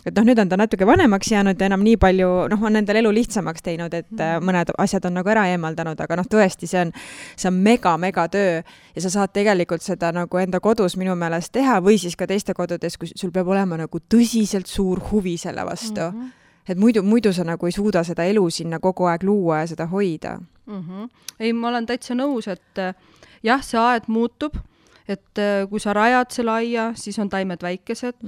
Et nüüd on ta natuke vanemaks jäänud ja enam nii palju, on endal elu lihtsamaks teinud, et mõned asjad on nagu ära eemaldanud, aga tõesti, see on mega töö ja sa saad tegelikult seda nagu enda kodus minu meelest teha või siis ka teiste kodudes, kui sul peab olema nagu tõsiselt suur huvi selle vastu. Et muidu sa nagu ei suuda seda elu sinna kogu aeg luua ja seda hoida. Ei, ma olen täitsa nõus, et jah, see aed muutub. Et kui sa rajad selle aia, siis on taimed väikesed.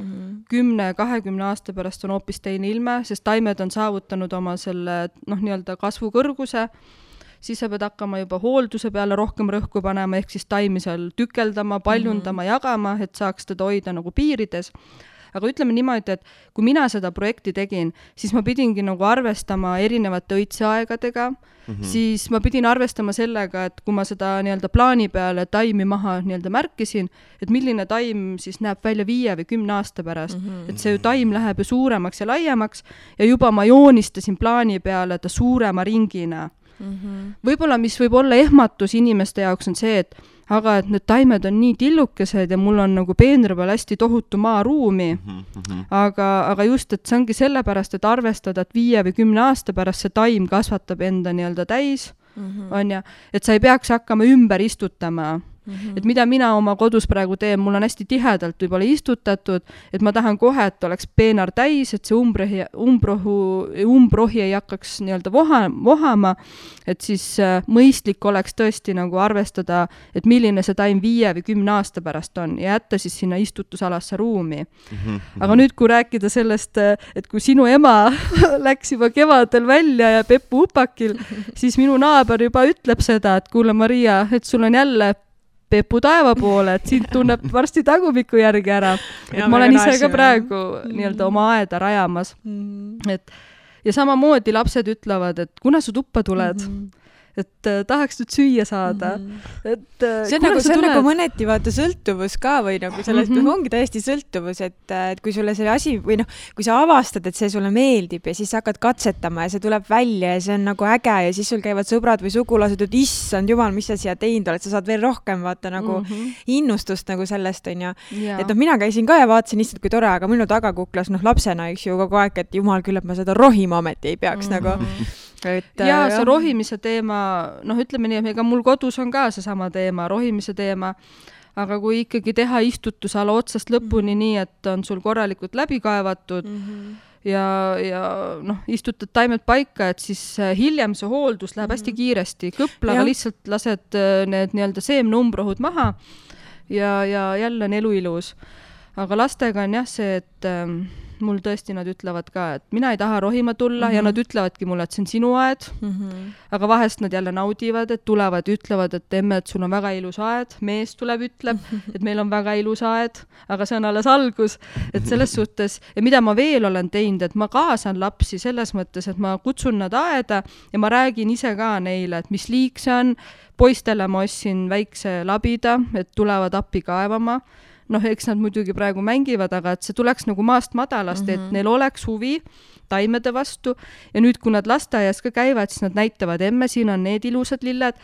10-20 aasta pärast on hoopis teine ilme, sest taimed on saavutanud oma selle nii-öelda kasvukõrguse. Siis sa pead hakkama juba hoolduse peale rohkem rõhku panema, ehk siis taimi seal tükeldama, paljundama, jagama, et saaks teda hoida nagu piirides. Aga ütleme niimoodi, et kui mina seda projekti tegin, siis ma pidingi nagu arvestama erinevate õitseaegadega, siis ma pidin arvestama sellega, et kui ma seda nii-öelda plaani peale taimi maha nii-öelda märkisin, et milline taim siis näeb välja 5 või 10 aasta pärast. Et see taim läheb ju suuremaks ja laiemaks ja juba ma joonistasin plaani peale ta suurema ringina. Võib-olla, mis võib olla ehmatus inimeste jaoks on see, et aga et need taimed on nii tillukesed ja mul on nagu peenra peal hästi tohutu maaruumi. Aga just, et see ongi sellepärast, et arvestada, et 5 või 10 aasta pärast see taim kasvatab enda nii-öelda täis, on ja, et sa ei peaks hakkama ümber istutama. Et mida mina oma kodus praegu teen, mul on hästi tihedalt võib-olla istutatud, et ma tahan kohe, et oleks peenar täis, et see umbrohi ei hakkaks nii-öelda vohama, et siis mõistlik oleks tõesti nagu arvestada, et milline see taim 5 või 10 aasta pärast on ja jätta siis sinna istutusalasse ruumi. Aga nüüd, kui rääkida sellest, et kui sinu ema läks juba kevadel välja ja Peppu upakil, siis minu naaber juba ütleb seda, et kuule Maria, et sul on jälle Peppu taeva poole, et sind tunneb varsti tagumiku järgi ära. Et ma olen ise ka praegu nii-öelda oma aeda rajamas. Ja samamoodi lapsed ütlevad, et kuna sa tuppa tuled, et tahaks nüüd süüa saada. Et, see on nagu mõneti vaata sõltuvus ka või nagu sellest ongi täiesti sõltuvus, et kui sulle see asi või kui sa avastad, et see sulle meeldib ja siis sa hakkad katsetama ja see tuleb välja ja see on nagu äge ja siis sul käivad sõbrad või sugulased, et issand jumal, mis sa siia teinud oled, sa saad veel rohkem vaata nagu innustust nagu sellest on ja. Et mina käisin ka ja vaatasin issand kui tore, aga minu tagakuklas lapsena üks ju kogu aeg, et jumal küll, et ma seda rohima ometi ei peaks nagu. Ja see rohimise teema, ütleme nii, ega mul kodus on ka seesama teema, rohimise teema, aga kui ikkagi teha istutusala otsast lõpuni nii, et on sul korralikult läbi kaevatud ja istutad taimed paika, et siis hiljem see hooldus läheb hästi kiiresti. Kõplaga lihtsalt lased need nii-öelda seemnumbrohud maha ja jälle on elu ilus. Aga lastega on jah see, et mul tõesti nad ütlevad ka, et mina ei taha rohima tulla ja nad ütlevadki mulle, et see on sinu aed, aga vahest nad jälle naudivad, et tulevad ja ütlevad, et emme, et sul on väga ilus aed, mees tuleb, ütleb, et meil on väga ilus aed, aga see on alles algus, et selles suhtes, ja mida ma veel olen teinud, et ma kaasan lapsi selles mõttes, et ma kutsun nad aeda ja ma räägin ise ka neile, et mis liik see on, poistele ma ostsin väikse labida, et tulevad appi kaevama, eks nad muidugi praegu mängivad, aga et see tuleks nagu maast madalast, et neil oleks huvi taimede vastu ja nüüd, kui nad lasteaias ka käivad, siis nad näitavad, emme, siin on need ilusad lilled,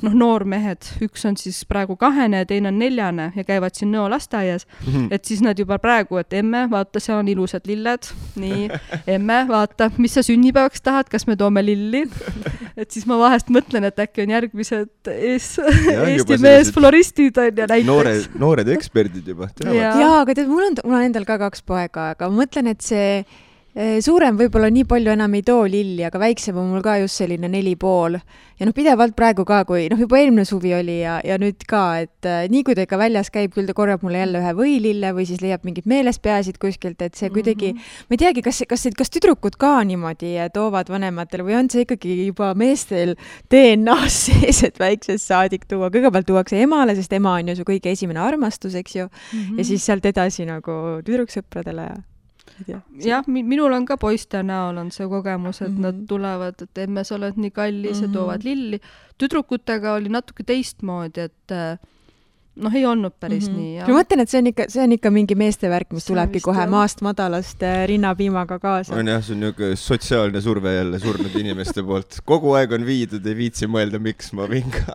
noormehed, üks on siis praegu 2 ja teine on 4 ja käivad siin Nõo lasteaias, et siis nad juba praegu, et emme, vaata, see on ilusad lilled, nii, emme, vaata, mis sa sünnipäevaks tahad, kas me toome lilli, et siis ma vahest mõtlen, et äkki on järgmised Eesti mees floristid on ja näiteks. Noored eksperdid juba. Jaa, aga tead, mul on endal ka 2 poega, aga ma mõtlen, et see suurem võib-olla nii palju enam ei too lilli, aga väiksem on mul ka just selline 4,5. Ja pidevalt praegu ka, kui juba eelmine suvi oli ja nüüd ka, et nii kui ta ikka väljas käib, küll ta korjab mulle jälle ühe võilille või siis leiab mingid meelespeasid kuskilt, et see kuidagi, ma ei teagi, kas tüdrukud ka niimoodi toovad vanematele või on see ikkagi juba meestel DNA-s sees, et väiksest saadik tuua. Kõigepealt tuuakse emale, sest ema on ju su kõige esimene armastus, eks ju, ja siis sealt edasi nagu tüdruksõpradele jah, minul on ka poiste näol on see kogemus, et nad tulevad, et emme, sa oled nii kallis ja toovad lilli. Tüdrukutega oli natuke teistmoodi, et ei olnud päris nii. Ja. Ma mõtlen, et see on ikka mingi meeste värk, mis tulebki kohe maast madalast rinnapiimaga kaasa. On jah, see on niisugune sotsiaalne surve jälle surnud inimeste poolt. Kogu aeg on viidud, ei viitsi mõelda, miks ma vinga.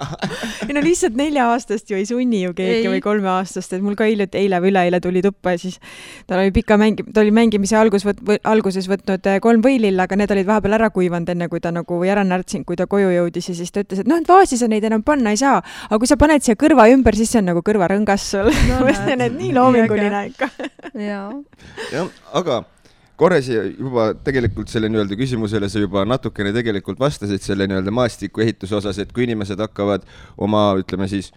Lihtsalt 4-aastast ju ei sunni ju keegi või 3-aastast, et mul ka eile või üleeile tuli tuppa ja siis ta oli mängimise alguses võtnud 3 võililla, aga need olid vahepeal ära kuivanud enne, kui ta nagu ära närtsinud, kui ta koju jõudis ja siis ta ütles, et vaasi sa neid enam panna ei saa, aga kui sa paned siia kõrva ümber, siis see on nagu kõrvarõngas sul. Mõtlen, et nii loominguline ikka. Jah, aga korres juba tegelikult selle nii-öelda küsimusele sa juba natukene tegelikult vastasid selle nii-öelda maastiku ehituse osas, et kui inimesed hakkavad oma, ütleme siis,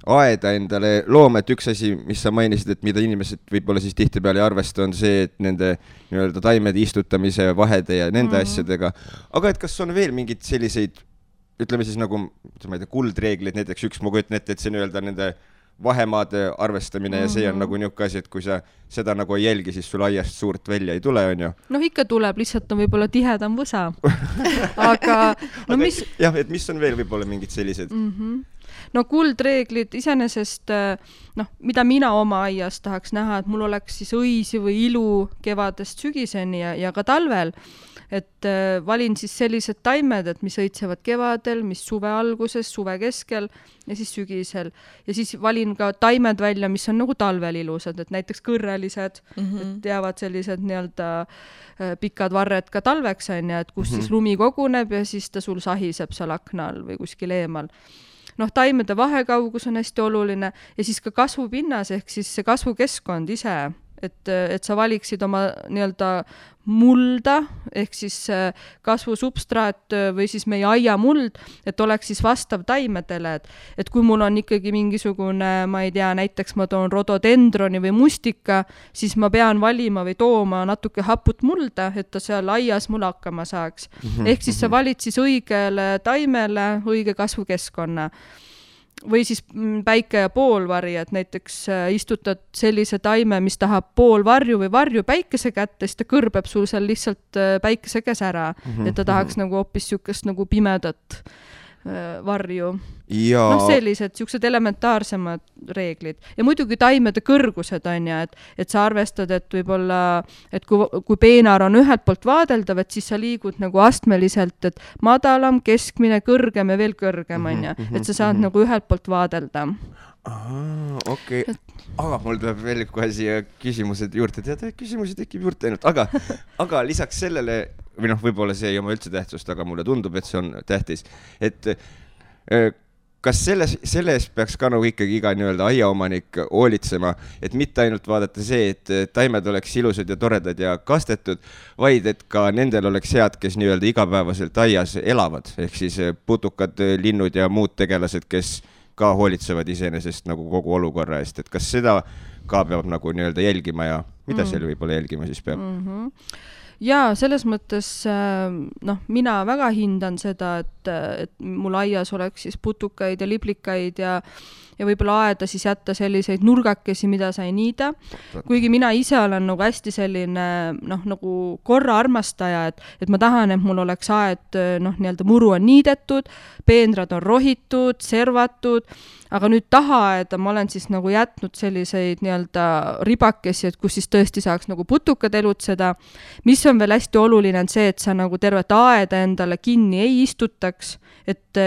aeda endale looma, et üks asi, mis sa mainisid, et mida inimesed võib-olla siis tihtipeale ei arvesta, on see, et nende nii-öelda taimede istutamise vahede ja nende asjadega. Aga et kas on veel mingid selliseid ütleme siis nagu, ma ei tea, kuldreeglid, näiteks üks ma kujutan ette, et see nii-öelda nende vahemaade arvestamine ja see on nagu niisugune asi, et kui sa seda nagu ei jälgi, siis sul aiast suurt välja ei tule, on ju? Ikka tuleb, lihtsalt on võib-olla tihedam võsa. Aga mis... Jah, et mis on veel võib-olla mingid sellised? Kuldreeglid iseenesest, mida mina oma aias tahaks näha, et mul oleks siis õisi või ilu kevadest sügiseni ja ka talvel. Et valin siis sellised taimed, et mis õitsevad kevadel, mis suve alguses, suve keskel ja siis sügisel. Ja siis valin ka taimed välja, mis on nagu talvel ilusad, et näiteks kõrrelised, et jäävad sellised nii-öelda pikad varred ka talveks, on ja, et kus siis lumi koguneb ja siis ta sul sahiseb seal akna all või kuskil eemal. noh, taimede vahekaugus on hästi oluline ja siis ka kasvupinnas ehk siis see kasvukeskkond ise, et sa valiksid oma nii-öelda mulda ehk siis kasvusubstraat või siis meie aiamuld, et oleks siis vastav taimedele, et kui mul on ikkagi mingisugune, ma ei tea, näiteks ma toon rododendroni või mustika, siis ma pean valima või tooma natuke haput mulda, et ta seal aias mul hakkama saaks. Ehk siis sa valid siis õigele taimele õige kasvukeskkonna. Või siis päike ja poolvari, et näiteks istutad sellise taime, mis tahab pool varju või varju päikese kätte, siis ta kõrbeb sul seal lihtsalt päikese käes ära, et ta tahaks nagu hoopis siukest nagu pimedat varju. Ja... noh, sellised elementaarsemad reeglid. Ja muidugi taimede kõrgused on ja, et sa arvestad, et võib-olla, et kui peenar on ühelt poolt vaadeldav, et siis sa liigud nagu astmeliselt, et madalam, keskmine, kõrgem ja veel kõrgem on ja, et sa saad nagu ühelt poolt vaadelda. Okei. Aga mul tuleb veel kohe siia küsimused juurde. Tead, küsimusi tekib juurde ainult. Aga lisaks sellele, või noh, võib-olla see ei oma üldse tähtsust, aga mulle tundub, et see on tähtis. Et kas selles peaks ka nagu ikkagi iga nii-öelda aiaomanik hoolitsema, et mitte ainult vaadata see, et taimed oleks ilusad ja toredad ja kastetud, vaid et ka nendel oleks head, kes nii-öelda igapäevaselt aias elavad, ehk siis putukad, linnud ja muud tegelased, kes ka hoolitsevad iseenesest nagu kogu olukorra eest, et kas seda ka peab nagu nii-öelda jälgima ja mida seal võib-olla jälgima siis peab? Ja selles mõttes, noh, mina väga hindan seda, et mul aias oleks siis putukaid ja liblikaid ja võib-olla aeda siis jätta selliseid nurgakesi, mida sa ei niida. Kuigi mina ise olen nagu hästi selline, noh, nagu korra armastaja, et ma tahan, et mul oleks aed, noh, nii-öelda muru on niidetud, peenrad on rohitud, servatud, aga nüüd tahaaeda ma olen siis nagu jätnud selliseid nii-öelda ribakesi, et kus siis tõesti saaks nagu putukad elutseda. Mis on veel hästi oluline on see, et sa nagu tervet aeda endale kinni ei istutaks, et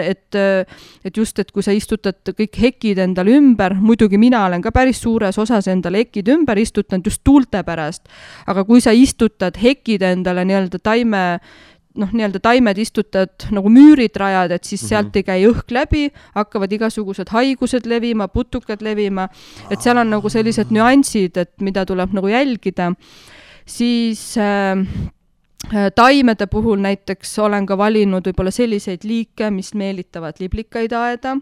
just, et kui sa istutad kõik hekid endale ümber, muidugi mina olen ka päris suures osas endale hekid ümber istutanud just tuulte pärast, aga kui sa istutad hekid endale nii-öelda taimed istutad nagu müürid rajad, et siis sealt ei käi õhk läbi, hakkavad igasugused haigused levima, putukad levima, et seal on nagu sellised nüansid, et mida tuleb nagu jälgida. Siis taimede puhul näiteks olen ka valinud võib-olla selliseid liike, mis meelitavad liblikaid aeda,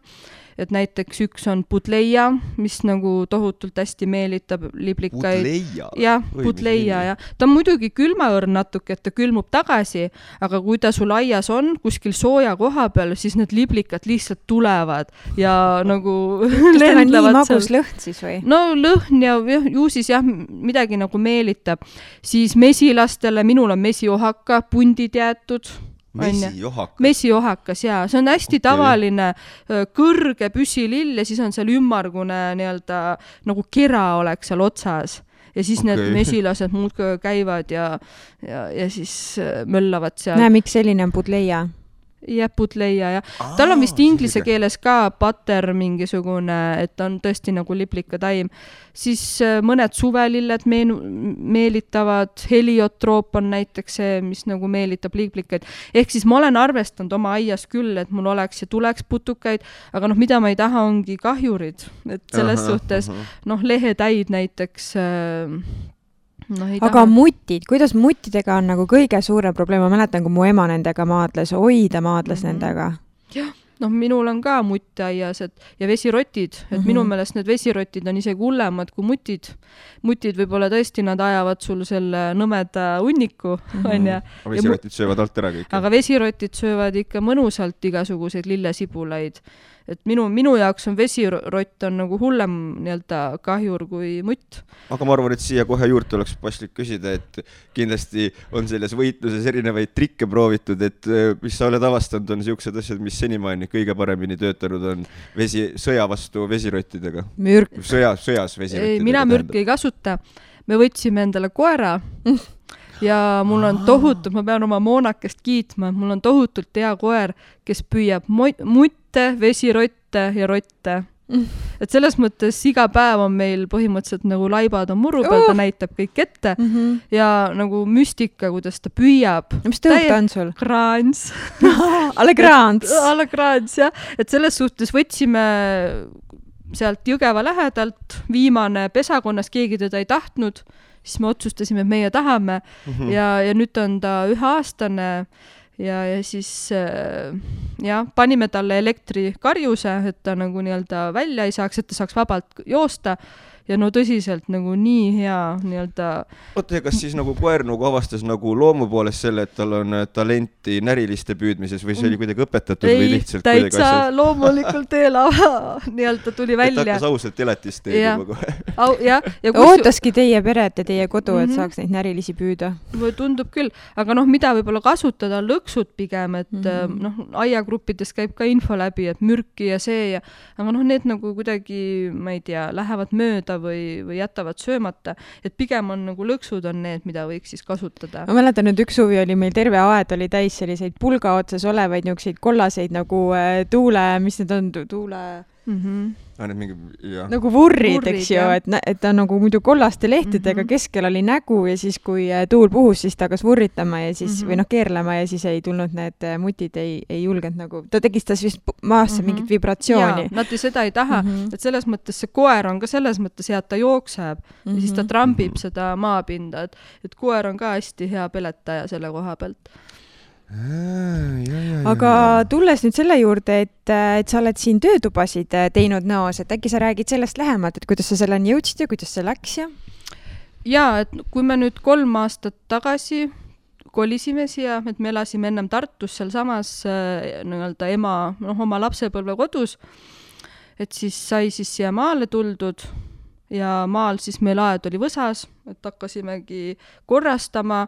et näiteks üks on budleia, mis nagu tohutult hästi meelitab liblikaid. Budleia? Jah, budleia, jah. Ta on muidugi külmaõrn natuke, et ta külmub tagasi, aga kui ta sul aias on kuskil sooja koha peal, siis need liblikad lihtsalt tulevad ja nagu kas tal on nii magus lõhn siis või? No lõhn ja ju siis jah, midagi nagu meelitab. Siis mesilastele, minul on mesiohaka, pundid jäetud. Mesiohakas, jaa. See on hästi tavaline kõrge püsilill ja siis on seal ümmargune nii-öelda nagu kera oleks seal otsas. Ja siis need mesilased muudkui käivad ja siis möllavad seal. Näe, miks selline on budleia? Ja budleia, ja. Tal on vist inglise keeles ka butter mingisugune, et on tõesti nagu liblika taim. Siis mõned suvelilled meelitavad, heliotroop on näiteks see, mis nagu meelitab liblikaid. Ehk siis ma olen arvestanud oma aias küll, et mul oleks ja tuleks putukaid, aga noh, mida ma ei taha, ongi kahjurid. Et selles suhtes, noh, lehetäid näiteks... No, aga mutid, kuidas mutidega on nagu kõige suurem probleem? Ma mäletan, kui mu ema nendega maadles, nendega. Jah, noh, minul on ka mutt aias ja vesirotid, et minu meelest need vesirotid on isegi hullemad kui mutid. Mutid võib-olla tõesti, nad ajavad sul selle nõmeda hunniku, on ja. Vesirotid söövad alt ära kõik. Aga vesirotid söövad ikka mõnusalt igasuguseid lillesibulaid. Et minu jaoks on vesirott on nagu hullem nii-öelda kahjur kui mutt. Aga ma arvan, et siia kohe juurde oleks paslik küsida, et kindlasti on selles võitluses erinevaid trikke proovitud, et mis sa oled avastanud, on siuksed asjad, mis senimaani kõige paremini töötanud on sõja vastu vesirottidega. Mürk. Sõjas vesirottidega. Mina mürki ei kasuta. Me võtsime endale koera ja mul on tohutult, ma pean oma Moonakest kiitma, mul on tohutult hea koer, kes püüab mutte, vesirotte ja rotte. Et selles mõttes iga päev on meil põhimõtteliselt nagu laibad on muru peal, ta näitab kõik ette ja nagu müstika, kuidas ta püüab. Mis tõuk ta on sul? Kraans. Alle kraans. Alle kraans, jah. Et selles suhtes võtsime sealt Jõgeva lähedalt, viimane pesakonnas, keegi teda ei tahtnud, siis me otsustasime, et meie tahame ja nüüd on ta 1-aastane ja siis panime talle elektrikarjuse, et ta nagu nii-öelda välja ei saaks, et ta saaks vabalt joosta ja no tõsiselt nagu nii hea nii-öelda... Oota, kas siis nagu koer nagu avastas nagu loomu poolest selle, et tal on talenti näriliste püüdmises või see oli kuidagi õpetatud või lihtsalt kuidagi asjad? Ei, täitsa loomulikult eelava nii-öelda tuli välja. Et hakkas ausalt elatist teed juba kohe. Ootaski teie peret ja teie kodu, et saaks neid närilisi püüda? Tundub küll, aga mida võib-olla kasutada, lõksud pigem, et aiagruppides käib ka info läbi, et mürki ja see aga need nagu kuidagi, ma ei tea, lähevad mööda või jätavad söömata, et pigem on nagu lõksud on need, mida võiks siis kasutada. Ma mäletan, nüüd üks suvi oli meil terve aed oli täis selliseid pulga otsas olevaid niukseid kollaseid nagu tuule, mis need on, tuule... nagu vurrid, eks ju, et ta nagu muidu kollaste lehtedega keskel oli nägu ja siis kui tuul puhus, siis ta hakkas vurritama ja siis või keerlema ja siis ei tulnud need mutid, ei julgenud nagu, ta tegistas vist maasse mingit vibratsiooni. Nad seda ei taha, et selles mõttes see koer on ka selles mõttes hea, et ta jookseb ja siis ta trambib seda maapinda, et koer on ka hästi hea peletaja selle koha pealt. Aga tulles nüüd selle juurde, et sa oled siin töötubasid teinud Nõos, et äkki sa räägid sellest lähemalt, et kuidas sa selleni jõudsid ja kuidas see läks ja? Jaa, et kui me nüüd 3 aastat tagasi kolisime siia, et me elasime ennem Tartus seal samas nii-öelda ema oma lapsepõlve kodus, et siis sai siis siia maale tuldud ja maal siis meil aed oli Võsas, et hakkasimegi korrastama,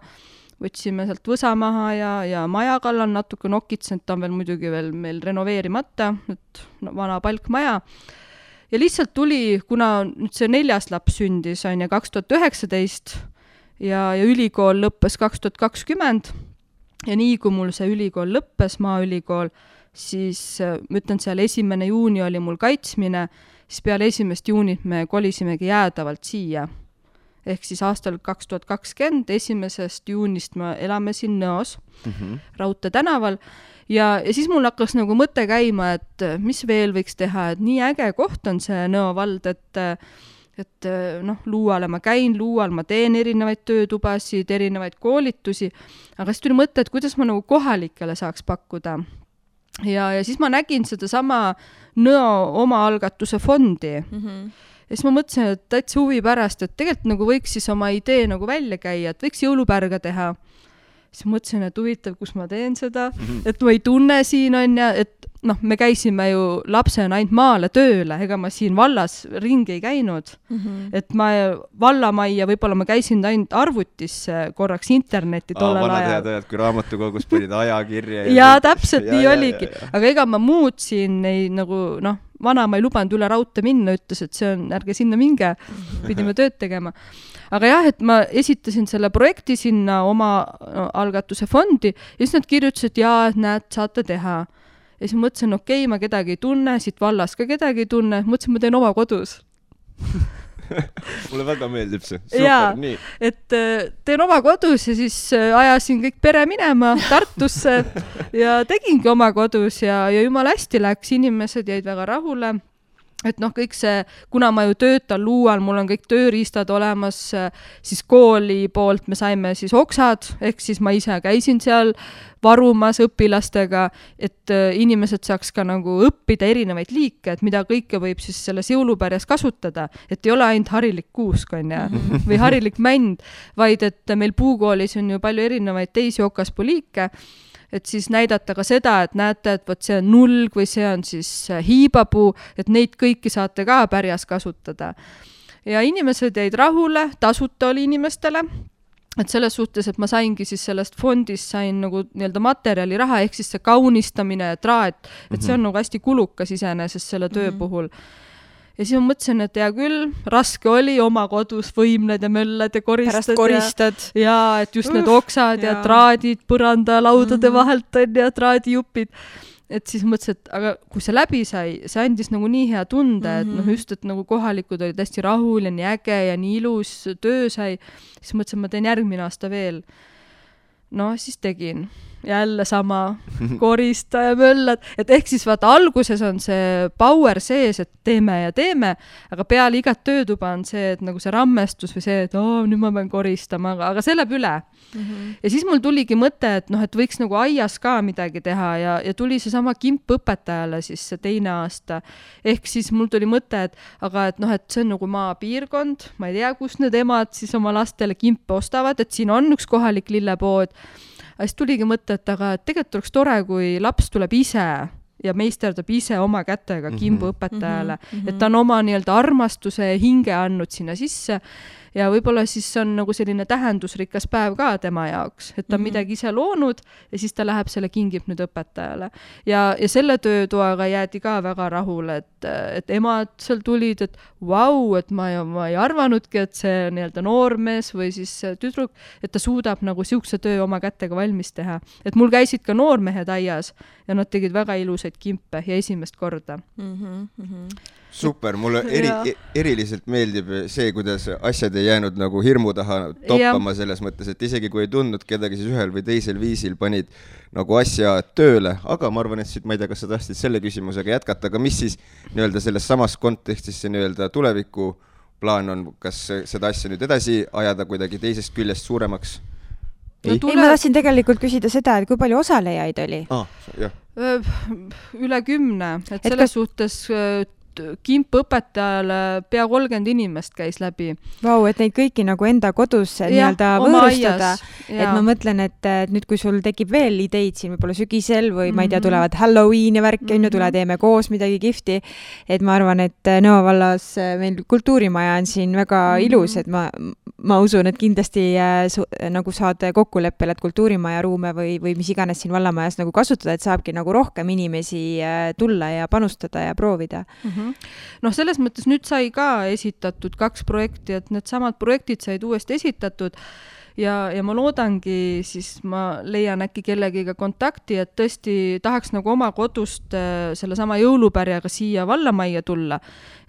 võtsime sealt Võsa maha ja maja kallal natuke nokitsenud, ta on veel muidugi veel meil renoveerimata, et vana palkmaja. Ja lihtsalt tuli, kuna nüüd see 4. laps sündis, on 2019 ja ülikool lõppes 2020 ja nii kui mul see ülikool lõppes, maaülikool, siis ma ütlen, seal 1. juuni oli mul kaitsmine, siis peale 1. juunit me kolisimegi jäädavalt siia. Ehk siis aastal 2020, 1. juunist me elame siin Nõos, Raudtee tänaval ja siis mul hakkas nagu mõte käima, et mis veel võiks teha, et nii äge koht on see Nõo vald, et Luuale ma käin, Luual ma teen erinevaid töötubasid, erinevaid koolitusi, aga siis tuli mõte, et kuidas ma nagu kohalikele saaks pakkuda. Ja siis ma nägin seda sama Nõo omaalgatuse fondi. Ja siis ma mõtlesin, et täitsa huvi pärast, et tegelikult nagu võiks siis oma idee nagu välja käia, et võiks jõulupärga teha. Siis mõtlesin, et huvitav, kus ma teen seda, et ma ei tunne siin on ja, et me käisime ju lapsena ainult maale tööle, ega ma siin vallas ringi ei käinud. Et ma vallamajja, võib-olla ma käisin ainult arvutis korraks internetti tollel ajal. Vanad head, kui raamatukogus panid ajakirja. Ja täpselt nii oligi. Aga ega ma muud siin ei nagu, vana ma ei lubanud üle raudtee minna, ütles, et see on, ärge sinna minge, pidime tööd tegema. Aga jah, et ma esitasin selle projekti sinna oma algatuse fondi ja siis nad kirjutasid, et näed, saate teha. Ja siis mõtlesin, okei, ma kedagi ei tunne, siit vallas ka kedagi ei tunne, mõtlesin, ma teen oma kodus. Mulle väga meeldib see. Super, nii. Et teen oma kodus ja siis ajasin kõik pere minema Tartusse ja tegingi oma kodus ja jumala hästi läks, inimesed jäid väga rahule. Et kõik see, kuna ma ju töötan Luual, mul on kõik tööriistad olemas, siis kooli poolt me saime siis oksad, ehk siis ma ise käisin seal varumas õpilastega, et inimesed saaks ka nagu õppida erinevaid liike, et mida kõike võib siis selles jõulupärjas kasutada, et ei ole ainult harilik kuusk on või harilik mänd, vaid et meil puukoolis on ju palju erinevaid teisi okaspuliike, et siis näidata ka seda, et näete, et võt see on nulg või see on siis hiibapuu, et neid kõiki saate ka pärjas kasutada. Ja inimesed jäid rahule, tasuta oli inimestele, et selles suhtes, et ma saingi siis sellest fondist sain nagu nii-öelda materjali raha, ehk siis see kaunistamine ja traat, et see on nagu hästi kulukas iseenesest selle töö puhul. Ja siis ma mõtlesin, et hea küll, raske oli oma kodus võimled ja mölled ja koristad. Ja et just need oksad ja traadid põranda laudade vahelt on ja traadijupid. et siis mõtlesin, et aga kui see läbi sai, see andis nagu nii hea tunde, et noh, just, et nagu kohalikud olid hästi rahul ja nii äge ja nii ilus töö sai, siis mõtlesin, ma teen järgmine aasta veel. No siis tegin. Jälle sama korista ja möllad, et ehk siis vaata alguses on see power sees, et teeme, aga peale igat töötuba on see, et nagu see rammestus või see, et nüüd ma pean koristama, aga see läheb üle. Ja siis mul tuligi mõte, et noh, et võiks nagu aias ka midagi teha ja tuli see sama kimp õpetajale siis see teine aasta. Ehk siis mul tuli mõte, et aga et noh, et see on nagu maapiirkond, ma ei tea, kus need emad siis oma lastele kimpe ostavad, et siin on üks kohalik lillepood. Aga siis tuligi mõte, et aga tegelikult oleks tore, kui laps tuleb ise ja meisterdab ise oma kätega kimbu õpetajale, et ta on oma nii-öelda armastuse ja hinge andnud sinna sisse ja võib-olla siis on nagu selline tähendusrikas päev ka tema jaoks, et ta on midagi ise loonud ja siis ta läheb selle kingib nüüd õpetajale. Ja selle töötoaga jäädi ka väga rahule, et emad seal tulid, et vau, et ma ei arvanudki, et see nii-öelda noormees või siis tüdruk, et ta suudab nagu siukse töö oma kätega valmis teha. Et mul käisid ka noormehed aias ja nad tegid väga ilusaid kimpe ja esimest korda. Super, mulle eriliselt meeldib see, kuidas asjad ei jäänud nagu hirmu taha toppama selles mõttes, et isegi kui ei tundnud kedagi, siis ühel või teisel viisil panid nagu asja tööle, aga ma arvan, et ma ei tea, kas sa tahtsid selle küsimusega jätkata, aga mis siis nii-öelda selles samas kontekstis see nii-öelda tuleviku plaan on, kas seda asja nüüd edasi ajada kuidagi teisest küljest suuremaks? Ei, ma tahtsin tegelikult küsida seda, et kui palju osalejaid oli? Üle 10, et selles suhtes kimp õpetajale pea 30 inimest käis läbi. Vau, et neid kõiki nagu enda kodus nii-öelda võõrustada. Et ma mõtlen, et nüüd kui sul tekib veel ideid siin võib-olla sügisel või ma ei tea, tulevad Halloween ja värki, tule teeme koos midagi kihvti. Et ma arvan, et Nõo vallas meil kultuurimaja on siin väga ilus, et ma usun, et kindlasti nagu saad kokkuleppel, et kultuurimaja ruume või mis iganes siin vallamajas nagu kasutada, et saabki nagu rohkem inimesi tulla ja panustada ja proovida. Noh, selles mõttes nüüd sai ka esitatud 2 projekti, et need samad projektid said uuesti esitatud ja ma loodangi, siis ma leian äkki kellegiga kontakti, et tõesti tahaks nagu oma kodust selle sama jõulupärjaga siia vallamajja tulla,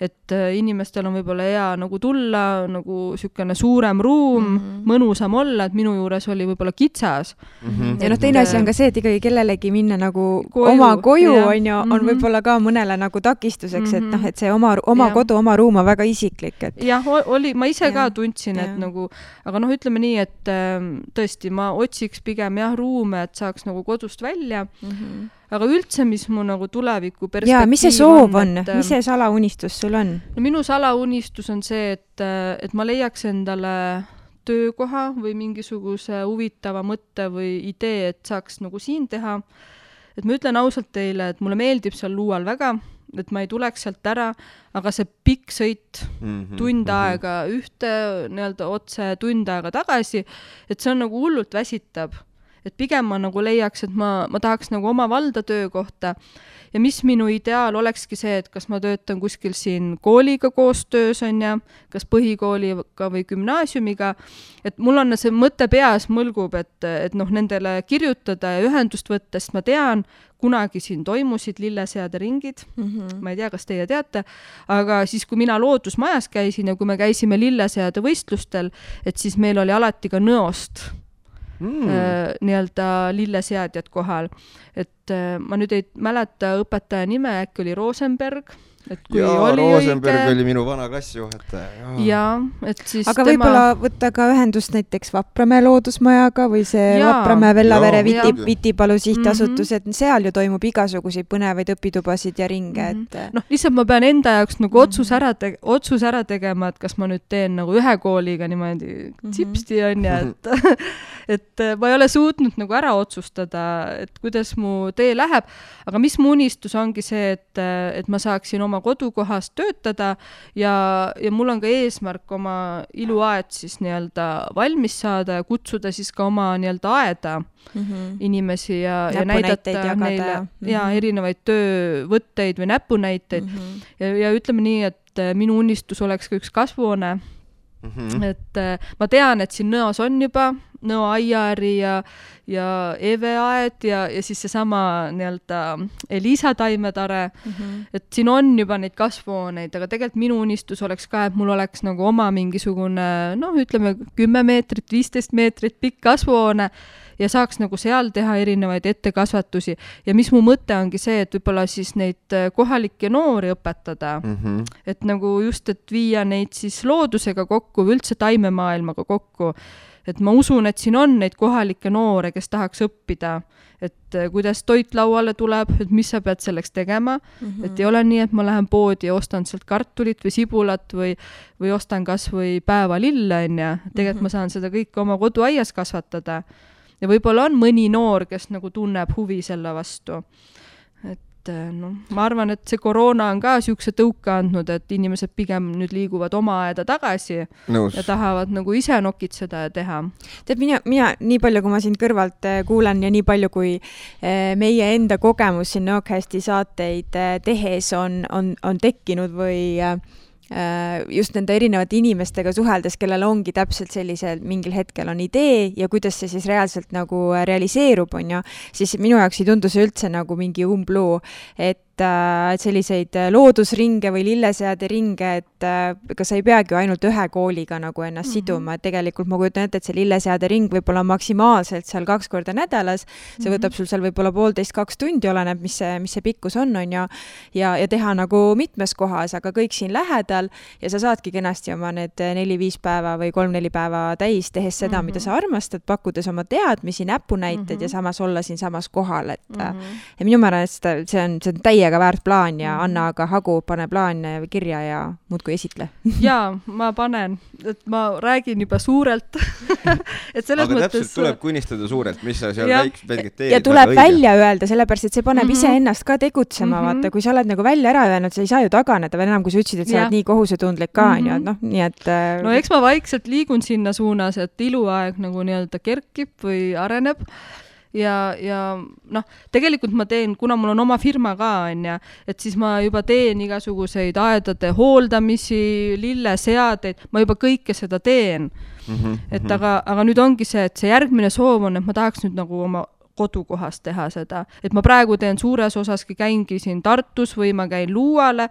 et inimestel on võib-olla hea nagu tulla, nagu sükene suurem ruum, mõnusam olla, et minu juures oli võib-olla kitsas. Ja teine asi on ka see, et ikkagi kellelegi minna nagu oma koju on võib-olla ka mõnele nagu takistuseks, et noh, et see oma kodu, oma ruum on väga isiklik. Jah, oli, ma ise ka tundsin, et nagu, aga noh, ütleme nii, et tõesti, ma otsiks pigem ruume, et saaks nagu kodust välja, aga üldse, mis mu nagu tuleviku perspektiiv on. Ja, mis see soov on? Mis see salaunistus sul on? No, minu salaunistus on see, et ma leiaks endale töökoha või mingisuguse huvitava mõtte või idee, et saaks nagu siin teha. Et ma ütlen ausalt teile, et mulle meeldib seal Luual väga, et ma ei tuleks sealt ära, aga see pikk sõit tund aega ühte nii-öelda otse tund aega tagasi, et see on nagu hullult väsitab. Et pigem ma nagu leiaks, et ma tahaks nagu oma valda töökohta ja mis minu ideaal olekski see, et kas ma töötan kuskil siin kooliga koostöös on ja kas põhikooliga või gümnaasiumiga, et mul on see mõte peas mõlgub, et noh, nendele kirjutada ja ühendust võtta, sest ma tean, kunagi siin toimusid lilleseade ringid, ma ei tea, kas teie teate, aga siis, kui mina loodusmajas käisin ja kui me käisime lilleseade võistlustel, et siis meil oli alati ka Nõost nii-öelda lilleseadjad kohal. Et ma nüüd ei mäleta õpetaja nime, äkki oli Rosenberg. Rosenberg oli minu vana klassijuhataja. Ja, et siis aga võib-olla võtta ka ühendust näiteks Vapramäe loodusmajaga või see Vapramäe Vellavere Vitipalu sihtasutus, et seal ju toimub igasuguseid põnevaid õpitubasid ja ringe. Noh, lihtsalt ma pean enda jaoks nagu otsus ära tegema, et kas ma nüüd teen nagu ühe kooliga niimoodi tsipsti on ja et ma ei ole suutnud nagu ära otsustada, et kuidas mu tee läheb, aga mis mu unistus ongi see, et ma saaksin oma kodukohast töötada ja mul on ka eesmärk oma iluaed siis nii-öelda valmis saada ja kutsuda siis ka oma nii-öelda aeda inimesi ja näidata neile erinevaid töövõtteid või näpunäiteid ja ütleme nii, et minu unistus oleks ka üks kasvuhoone. Et ma tean, et siin Nõos on juba nõoaiari ja eveaed ja siis seesama nii-öelda Elisa taimetare, et siin on juba neid kasvuhooneid, aga tegelikult minu unistus oleks ka, et mul oleks nagu oma mingisugune, ütleme 10 meetrit, 15 meetrit pikk kasvuhoone ja saaks nagu seal teha erinevaid ettekasvatusi. Ja mis mu mõte ongi see, et võib-olla siis neid kohalikke noori õpetada, et nagu just, et viia neid siis loodusega kokku või üldse taimemaailmaga kokku. Et ma usun, et siin on neid kohalikke noore, kes tahaks õppida, et kuidas toit lauale tuleb, et mis sa pead selleks tegema, et ei ole nii, et ma lähen poodi ja ostan sealt kartulit või sibulat või ostan kas või päevalille, tegelikult ma saan seda kõike oma koduaias kasvatada. Ja võib-olla on mõni noor, kes nagu tunneb huvi selle vastu. Et ma arvan, et see koroona on ka siukse tõuka andnud, et inimesed pigem nüüd liiguvad oma aeda tagasi ja tahavad nagu ise nokitseda ja teha. Tead, mina nii palju, kui ma sind kõrvalt kuulen ja nii palju, kui meie enda kogemus siin Nõokästi saateid tehes on tekkinud või just nende erinevate inimestega suheldes, kellel ongi täpselt sellisel mingil hetkel on idee ja kuidas see siis reaalselt nagu realiseerub, siis minu jaoks ei tundu see üldse nagu mingi umbluu, et selliseid loodusringe või lilleseade ringe, et ega sa ei peagi ainult ühe kooliga nagu ennast siduma, et tegelikult ma kujutan ette, et see lilleseade ring võib olla maksimaalselt seal 2 korda nädalas, see võtab sul seal võib-olla 1,5–2 tundi, oleneb, mis see pikkus on ja teha nagu mitmes kohas, aga kõik siin lähedal ja sa saadki kenasti oma need 4-5 päeva või 3-4 päeva täis, tehes seda, mida sa armastad, pakkudes oma teadmisi, näpunäited ja samas olla siin samas kohal, et ja minu meelest see on täiega väärt plaan ja Anna aga Hagu pane plaan kirja ja muudkui esitle. Jaa, ma panen, et ma räägin juba suurelt. Et selles aga mõttes... täpselt tuleb kunnistada suurelt, mis sa seal väikselt teed. Ja tuleb välja öelda, sellepärast, et see paneb ise ennast ka tegutsema, vaata, kui sa oled nagu välja ära öelnud, sa ei saa ju taganeda veel enam, kui sa ütlesid, et sa oled nii kohusetundlik ka, nii et... No eks ma vaikselt liigun sinna suunas, et iluaeg nagu nii-öelda kerkib või areneb. Ja tegelikult ma teen, kuna mul on oma firma ka, et siis ma juba teen igasuguseid aedade hooldamisi, lilleseadeid, ma juba kõike seda teen. Et aga nüüd ongi see, et see järgmine soov on, et ma tahaks nüüd nagu oma kodukohas teha seda. Et ma praegu teen suures osaski, käingi siin Tartus või ma käin Luuale,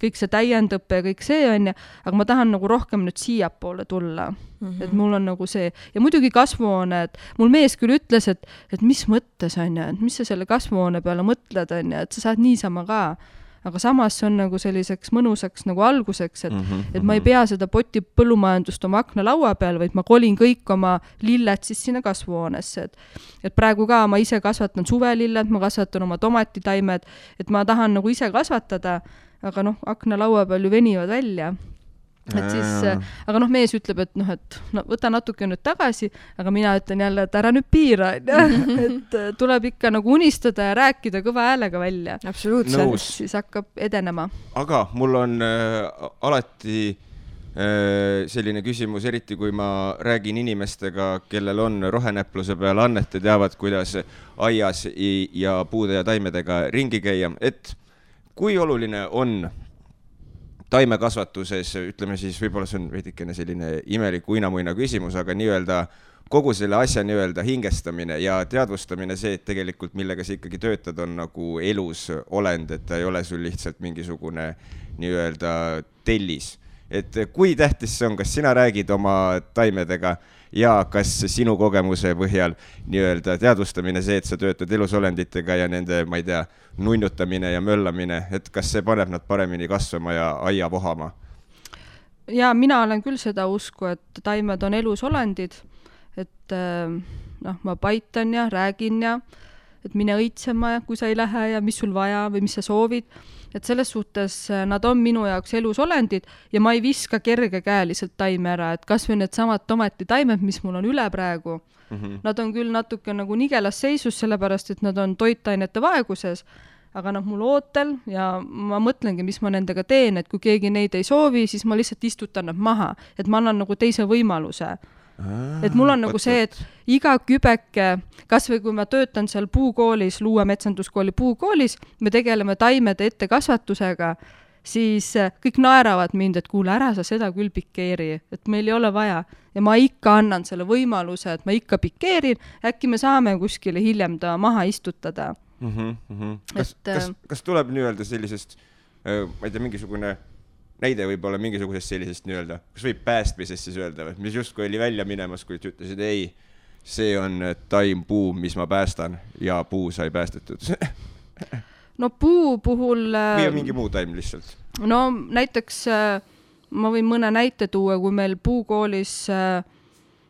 kõik see täiendõppe ja kõik see on, aga ma tahan nagu rohkem nüüd siiapoole tulla. Et mul on nagu see, ja muidugi kasvuhoone, et mul mees küll ütles, et mis mõttes on et mis sa selle kasvuhoone peale mõtled on et sa saad niisama ka. Aga samas see on nagu selliseks mõnusaks nagu alguseks, et ma ei pea seda poti põllumajandust oma akna laua peal, vaid ma kolin kõik oma lilled siis sinna kasvuhoonesse. Et praegu ka ma ise kasvatan suvelilled, ma kasvatan oma tomatitaimed, et ma tahan nagu ise kasvatada, aga akna laua peal ju venivad välja. Et siis, aga mees ütleb, et võta natuke nüüd tagasi, aga mina ütlen jälle, et ära nüüd piira, et tuleb ikka nagu unistada ja rääkida kõva häälega välja. Absoluutselt. Siis hakkab edenema. Aga mul on alati selline küsimus, eriti kui ma räägin inimestega, kellel on rohenäpluse peal annet ja teavad, kuidas aias ja puude ja taimedega ringi käia, et kui oluline on taimekasvatuses, ütleme siis, võib-olla see on veidikene selline imelik uinamuina küsimus, aga nii-öelda kogu selle asja nii-öelda hingestamine ja teadvustamine see, et tegelikult millega sa ikkagi töötad, on nagu elus olend, et ta ei ole sul lihtsalt mingisugune nii-öelda tellis. Et kui tähtis see on, kas sina räägid oma taimedega ja kas sinu kogemuse põhjal nii-öelda teadvustamine see, et sa töötad elusolenditega ja nende, ma ei tea, nunnutamine ja möllamine, et kas see paneb nad paremini kasvama ja aia vohama? Ja mina olen küll seda usku, et taimed on elusolendid, et ma paitan ja räägin ja et mine õitsema, kui sa ei lähe ja mis sul vaja või mis sa soovid. Et selles suhtes nad on minu jaoks elusolendid ja ma ei viska kergekäeliselt taime ära, et kas või need samad tomatitaimed, mis mul on üle praegu. Nad on küll natuke nagu nigelas seisus, sellepärast, et nad on toitainete vaeguses, aga nad mul ootel ja ma mõtlengi, mis ma nendega teen, et kui keegi neid ei soovi, siis ma lihtsalt istutan nad maha, et ma annan nagu teise võimaluse. Et mul on nagu see, et iga kübeke, kas või kui ma töötan seal puukoolis, Luue metsanduskooli puukoolis, me tegeleme taimede ettekasvatusega, siis kõik naeravad mind, et kuule, ära sa seda küll pikeeri, et meil ei ole vaja. Ja ma ikka annan selle võimaluse, et ma ikka pikeerin, äkki me saame kuskile hiljem ta maha istutada. Kas tuleb nii-öelda sellisest, ma ei tea, mingisugune näide võib olla mingisugusest sellisest nii-öelda, kas võib päästmisest siis öelda, mis justkui oli välja minemas, kui ütlesid, ei, see on taim puu, mis ma päästan ja puu sai päästetud? No puu puhul... Või on mingi muu taim lihtsalt? No näiteks ma võin mõne näite tuua, kui meil puukoolis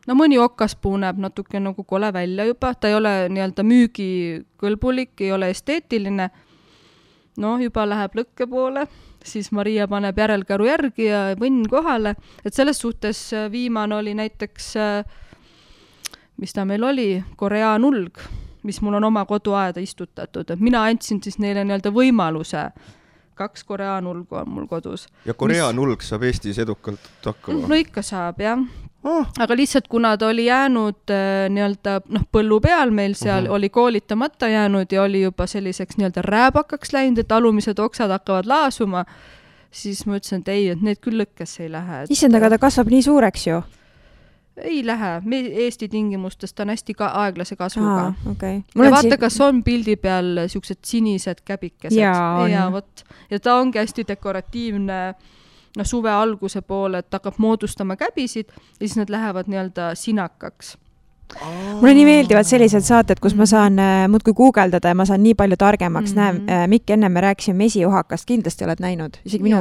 no mõni okaspuu näeb natuke nagu kole välja juba, ta ei ole nii-öelda müügikõlbulik, ei ole esteetiline, no juba läheb lõkke poole, siis Maria paneb järelkäru järgi ja võnn kohale, et selles suhtes viimane oli näiteks, mis ta meil oli, koreaanulg, mis mul on oma koduaeda istutatud, et mina andsin siis neile nii-öelda võimaluse, 2 koreaanulgu on mul kodus. Ja koreaanulg saab Eestis edukalt hakkama? No ikka saab, jah. Aga lihtsalt kuna ta oli jäänud nii-öelda põllu peal meil seal, oli koolitamata jäänud ja oli juba selliseks nii-öelda rääbakaks läinud, et alumised oksad hakkavad laasuma, siis ma ütlesin, et ei, et need küll lõkkesse ei lähe. Issand, aga ta kasvab nii suureks ju? Ei lähe. Eesti tingimustes ta on hästi aeglase kasvuga. Okay. Ja vaata, kas on pildi peal siuksed sinised käbikesed. Ja võt. Ja ta ongi hästi dekoratiivne suve alguse poole, et hakkab moodustama käbisid ja siis nad lähevad nii-öelda sinakaks. Mulle nii meeldivad sellised saated, kus ma saan muudkui guugeldada ja ma saan nii palju targemaks. Mikk, enne me rääkisime mesiohakast, kindlasti oled näinud. Isegi minu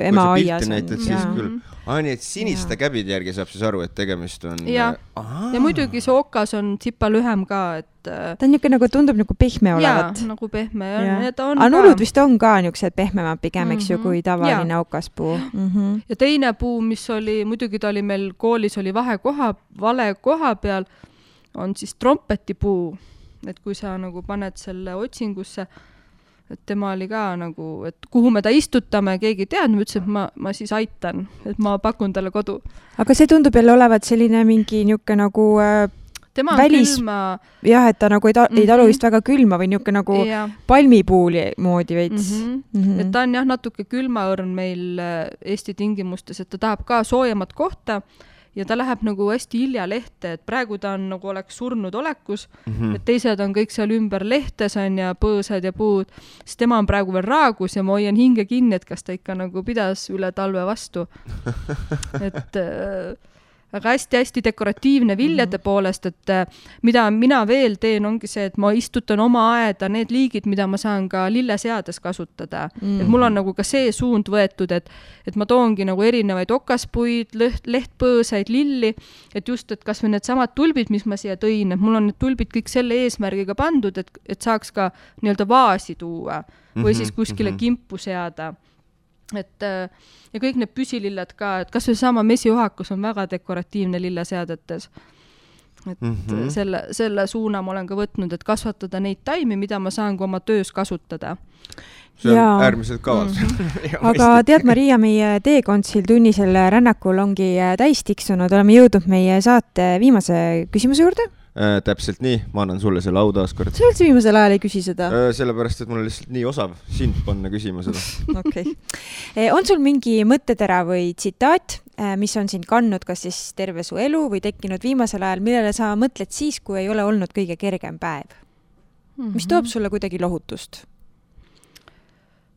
ema aias. Siis küll. Nii, et siniste käbide järgi saab siis aru, et tegemist on... Ja muidugi see okas on tsipa lühem ka, et... Ta on niisugune, nagu tundub nagu pehme olevat. Jaa, nagu pehme. Aga nullud vist on ka niisugused pehmemad pigem, eks ju, kui tavaline okaspuu. Ja teine puu, mis oli, muidugi ta oli meil koolis, oli vale koha peal, on siis trompetipuu. Et kui sa nagu paned selle otsingusse, et tema oli ka nagu, et kuhu me ta istutame, keegi tead, ma ütlesin, et ma siis aitan, et ma pakun talle kodu. Aga see tundub jälle olevat selline mingi niuke nagu tema on külma... Jah, et ta nagu ei talu vist väga külma või niuke nagu palmipuuli moodi veits. Et ta on jah natuke külmaõrn meil Eesti tingimustes, et ta tahab ka soojemat kohta ja ta läheb nagu hästi hilja lehte, et praegu ta on nagu oleks surnud olekus, et teised on kõik seal ümber lehtes on ja põõsad ja puud, siis tema on praegu veel raagus ja ma hoian hinge kinni, et kas ta ikka nagu pidas üle talve vastu. Et aga hästi-hästi dekoratiivne viljade poolest, et mida mina veel teen, ongi see, et ma istutan oma aeda need liigid, mida ma saan ka lilleseades kasutada. Et mul on nagu ka see suund võetud, et ma toongi nagu erinevaid okaspuid, lehtpõõsaid, lilli, et just, et kas või need samad tulbid, mis ma siia tõin, et mul on need tulbid kõik selle eesmärgiga pandud, et saaks ka nii-öelda vaasi tuua või siis kuskile kimpu seada. Et, ja kõik need püsilillad ka, et kas või sama mesiohakus on väga dekoratiivne lilleseadetes. Et selle suuna ma olen ka võtnud, et kasvatada neid taimi, mida ma saan ka oma töös kasutada. See on äärmiselt kaval. Aga tead, Maria, meie teekondsil tunnisel rännakul ongi täis tiksunud. Oleme jõudnud meie saate viimase küsimuse juurde. Täpselt nii, ma annan sulle selle au taas kord. Sa üldse viimasel ajal ei küsi seda? Sellepärast, et mul on lihtsalt nii osav sind panna küsima seda. Okay. On sul mingi mõttetera või tsitaat, mis on sind kandnud kas siis terve su elu või tekkinud viimasel ajal, millele sa mõtled siis, kui ei ole olnud kõige kergem päev? Mis toob sulle kuidagi lohutust?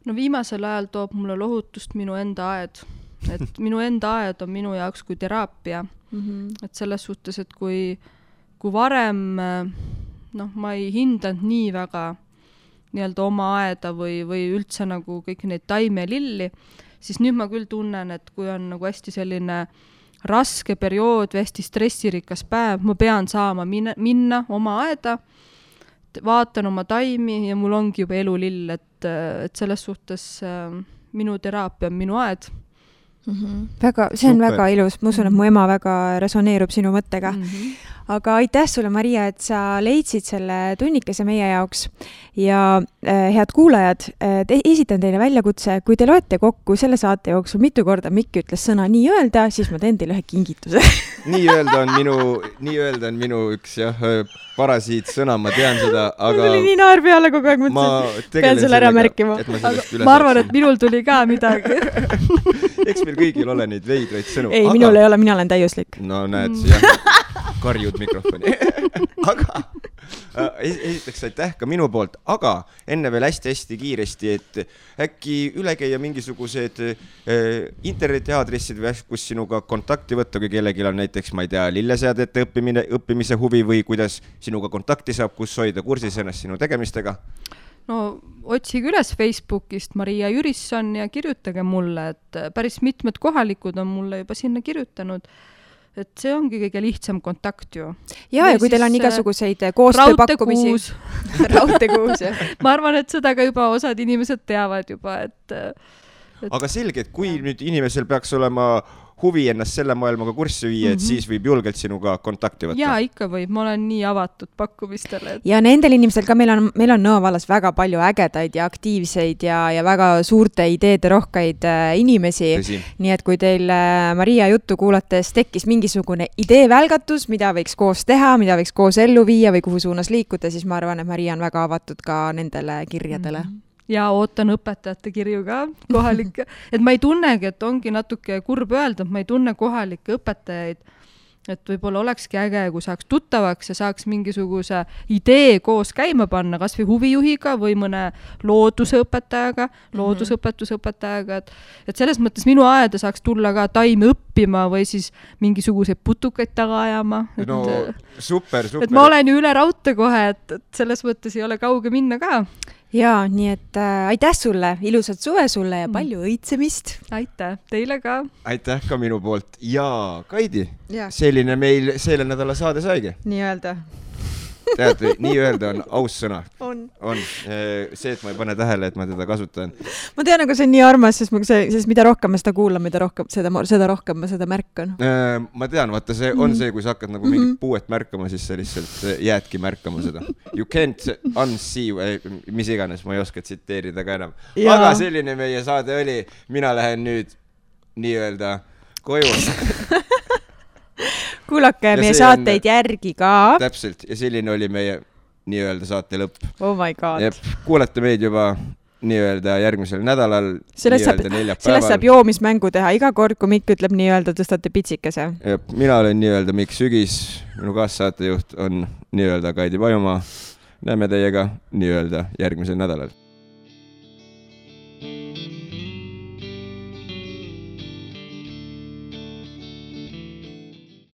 No viimasel ajal toob mulle lohutust minu enda aed. Et minu enda aed on minu jaoks kui teraapia. Et selles suhtes, et kui varem ma ei hindanud nii väga nii-öelda oma aeda või üldse nagu kõik neid taime ja lilli, siis nüüd ma küll tunnen, et kui on nagu hästi selline raske periood või hästi stressirikas päev, ma pean saama minna oma aeda, vaatan oma taimi ja mul ongi juba elulill, et selles suhtes minu teraapia on minu aed. Väga, see on Super. väga ilus, ma usun, et mu ema väga resoneerub sinu mõttega. Aga aitäh sulle, Maria, et sa leidsid selle tunnikese meie jaoks ja head kuulajad, esitan teile väljakutse, kui te loete kokku selle saate jooksul mitu korda Mikk ütles sõna nii öelda, siis ma teen teile ühe kingituse. nii öelda on minu üks parasiit sõna, ma tean seda, aga mul oli nii naer peale kogu aeg, pean sulle ära märkima. Ma arvan, et minul tuli ka midagi. Eks meil kõigil ole neid veidraid sõnu. Ei, minul ei ole, mina olen täiuslik. No näed, jah, karjud mikrofoni. Aga esiteks aitäh ka minu poolt, aga enne veel hästi kiiresti, et äkki üle käia mingisugused internetiaadressid või kus sinuga kontakti võtta, kui kellelgi on näiteks, ma ei tea, lilleseadete õppimise huvi või kuidas sinuga kontakti saab, kus hoida kursis ennast sinu tegemistega? No otsige üles Facebookist Maria Jürisson ja kirjutage mulle, et päris mitmed kohalikud on mulle juba sinna kirjutanud. Et see ongi kõige lihtsam kontakt ju. Ja kui teil on igasuguseid koostööpakkumisi. Raudtekuus. Ma arvan, et seda ka juba osad inimesed teavad juba, et... Aga selge, et kui nüüd inimesel peaks olema huvi ennast selle maailmaga kurssi viia, et siis võib julgelt sinuga kontakti võtta. Jaa, ikka võib. Ma olen nii avatud pakkumistele. Ja nendel inimestel ka meil on Nõo vallas väga palju ägedaid ja aktiivseid ja väga suurte ideede rohkeid inimesi. Nii et kui teil Maria juttu kuulates tekkis mingisugune ideevälgatus, mida võiks koos teha, mida võiks koos ellu viia või kuhu suunas liikuda, siis ma arvan, et Maria on väga avatud ka nendele kirjadele. Ja ootan õpetajate kirju ka kohalikke. Et ma ei tunnegi, et ongi natuke kurb öelda, et ma ei tunne kohalikke õpetajaid. Et võib-olla olekski äge, kui saaks tuttavaks ja saaks mingisuguse idee koos käima panna, kas või huvijuhiga või mõne loodusõpetajaga, loodusõpetusõpetajaga. Et selles mõttes minu aeda saaks tulla ka taimi õppima või siis mingisuguseid putukaid taga ajama. No super. Et ma olen ju üle raudte kohe, et selles mõttes ei ole kauge minna ka. Jaa, nii et aitäh sulle, ilusat suve sulle ja palju õitsemist. Aitäh, teile ka. Aitäh ka minu poolt. Ja Kaidi, selline meil selle nädala saade saigi. Nii öelda. Tead, nii öelda on aus sõna. On. See, et ma ei pane tähele, et ma teda kasutan. Ma tean, aga see on nii armas, sest mida rohkem ma seda kuulan, seda rohkem ma seda märkan. Ma tean, vaata, see on see, kui sa hakkad nagu mingit puuet märkama, siis sa lihtsalt jäädki märkama seda. You can't unsee, mis iganes, ma ei oska tsiteerida ka enam. Aga selline meie saade oli. Mina lähen nüüd nii öelda koju. Kuulake meie saateid järgi ka. Täpselt, ja selline oli meie nii-öelda saate lõpp. Oh my god. Kuulete meid juba nii-öelda järgmisel nädalal, nii-öelda neljapäeval. Sellest saab joomismängu teha. Iga kord, kui Mikk ütleb nii-öelda, tõstate pitsikese. Mina olen nii-öelda Mikk Sügis, minu kaassaatejuht on nii-öelda Kaidi Pajumaa. Näeme teiega nii-öelda järgmisel nädalal.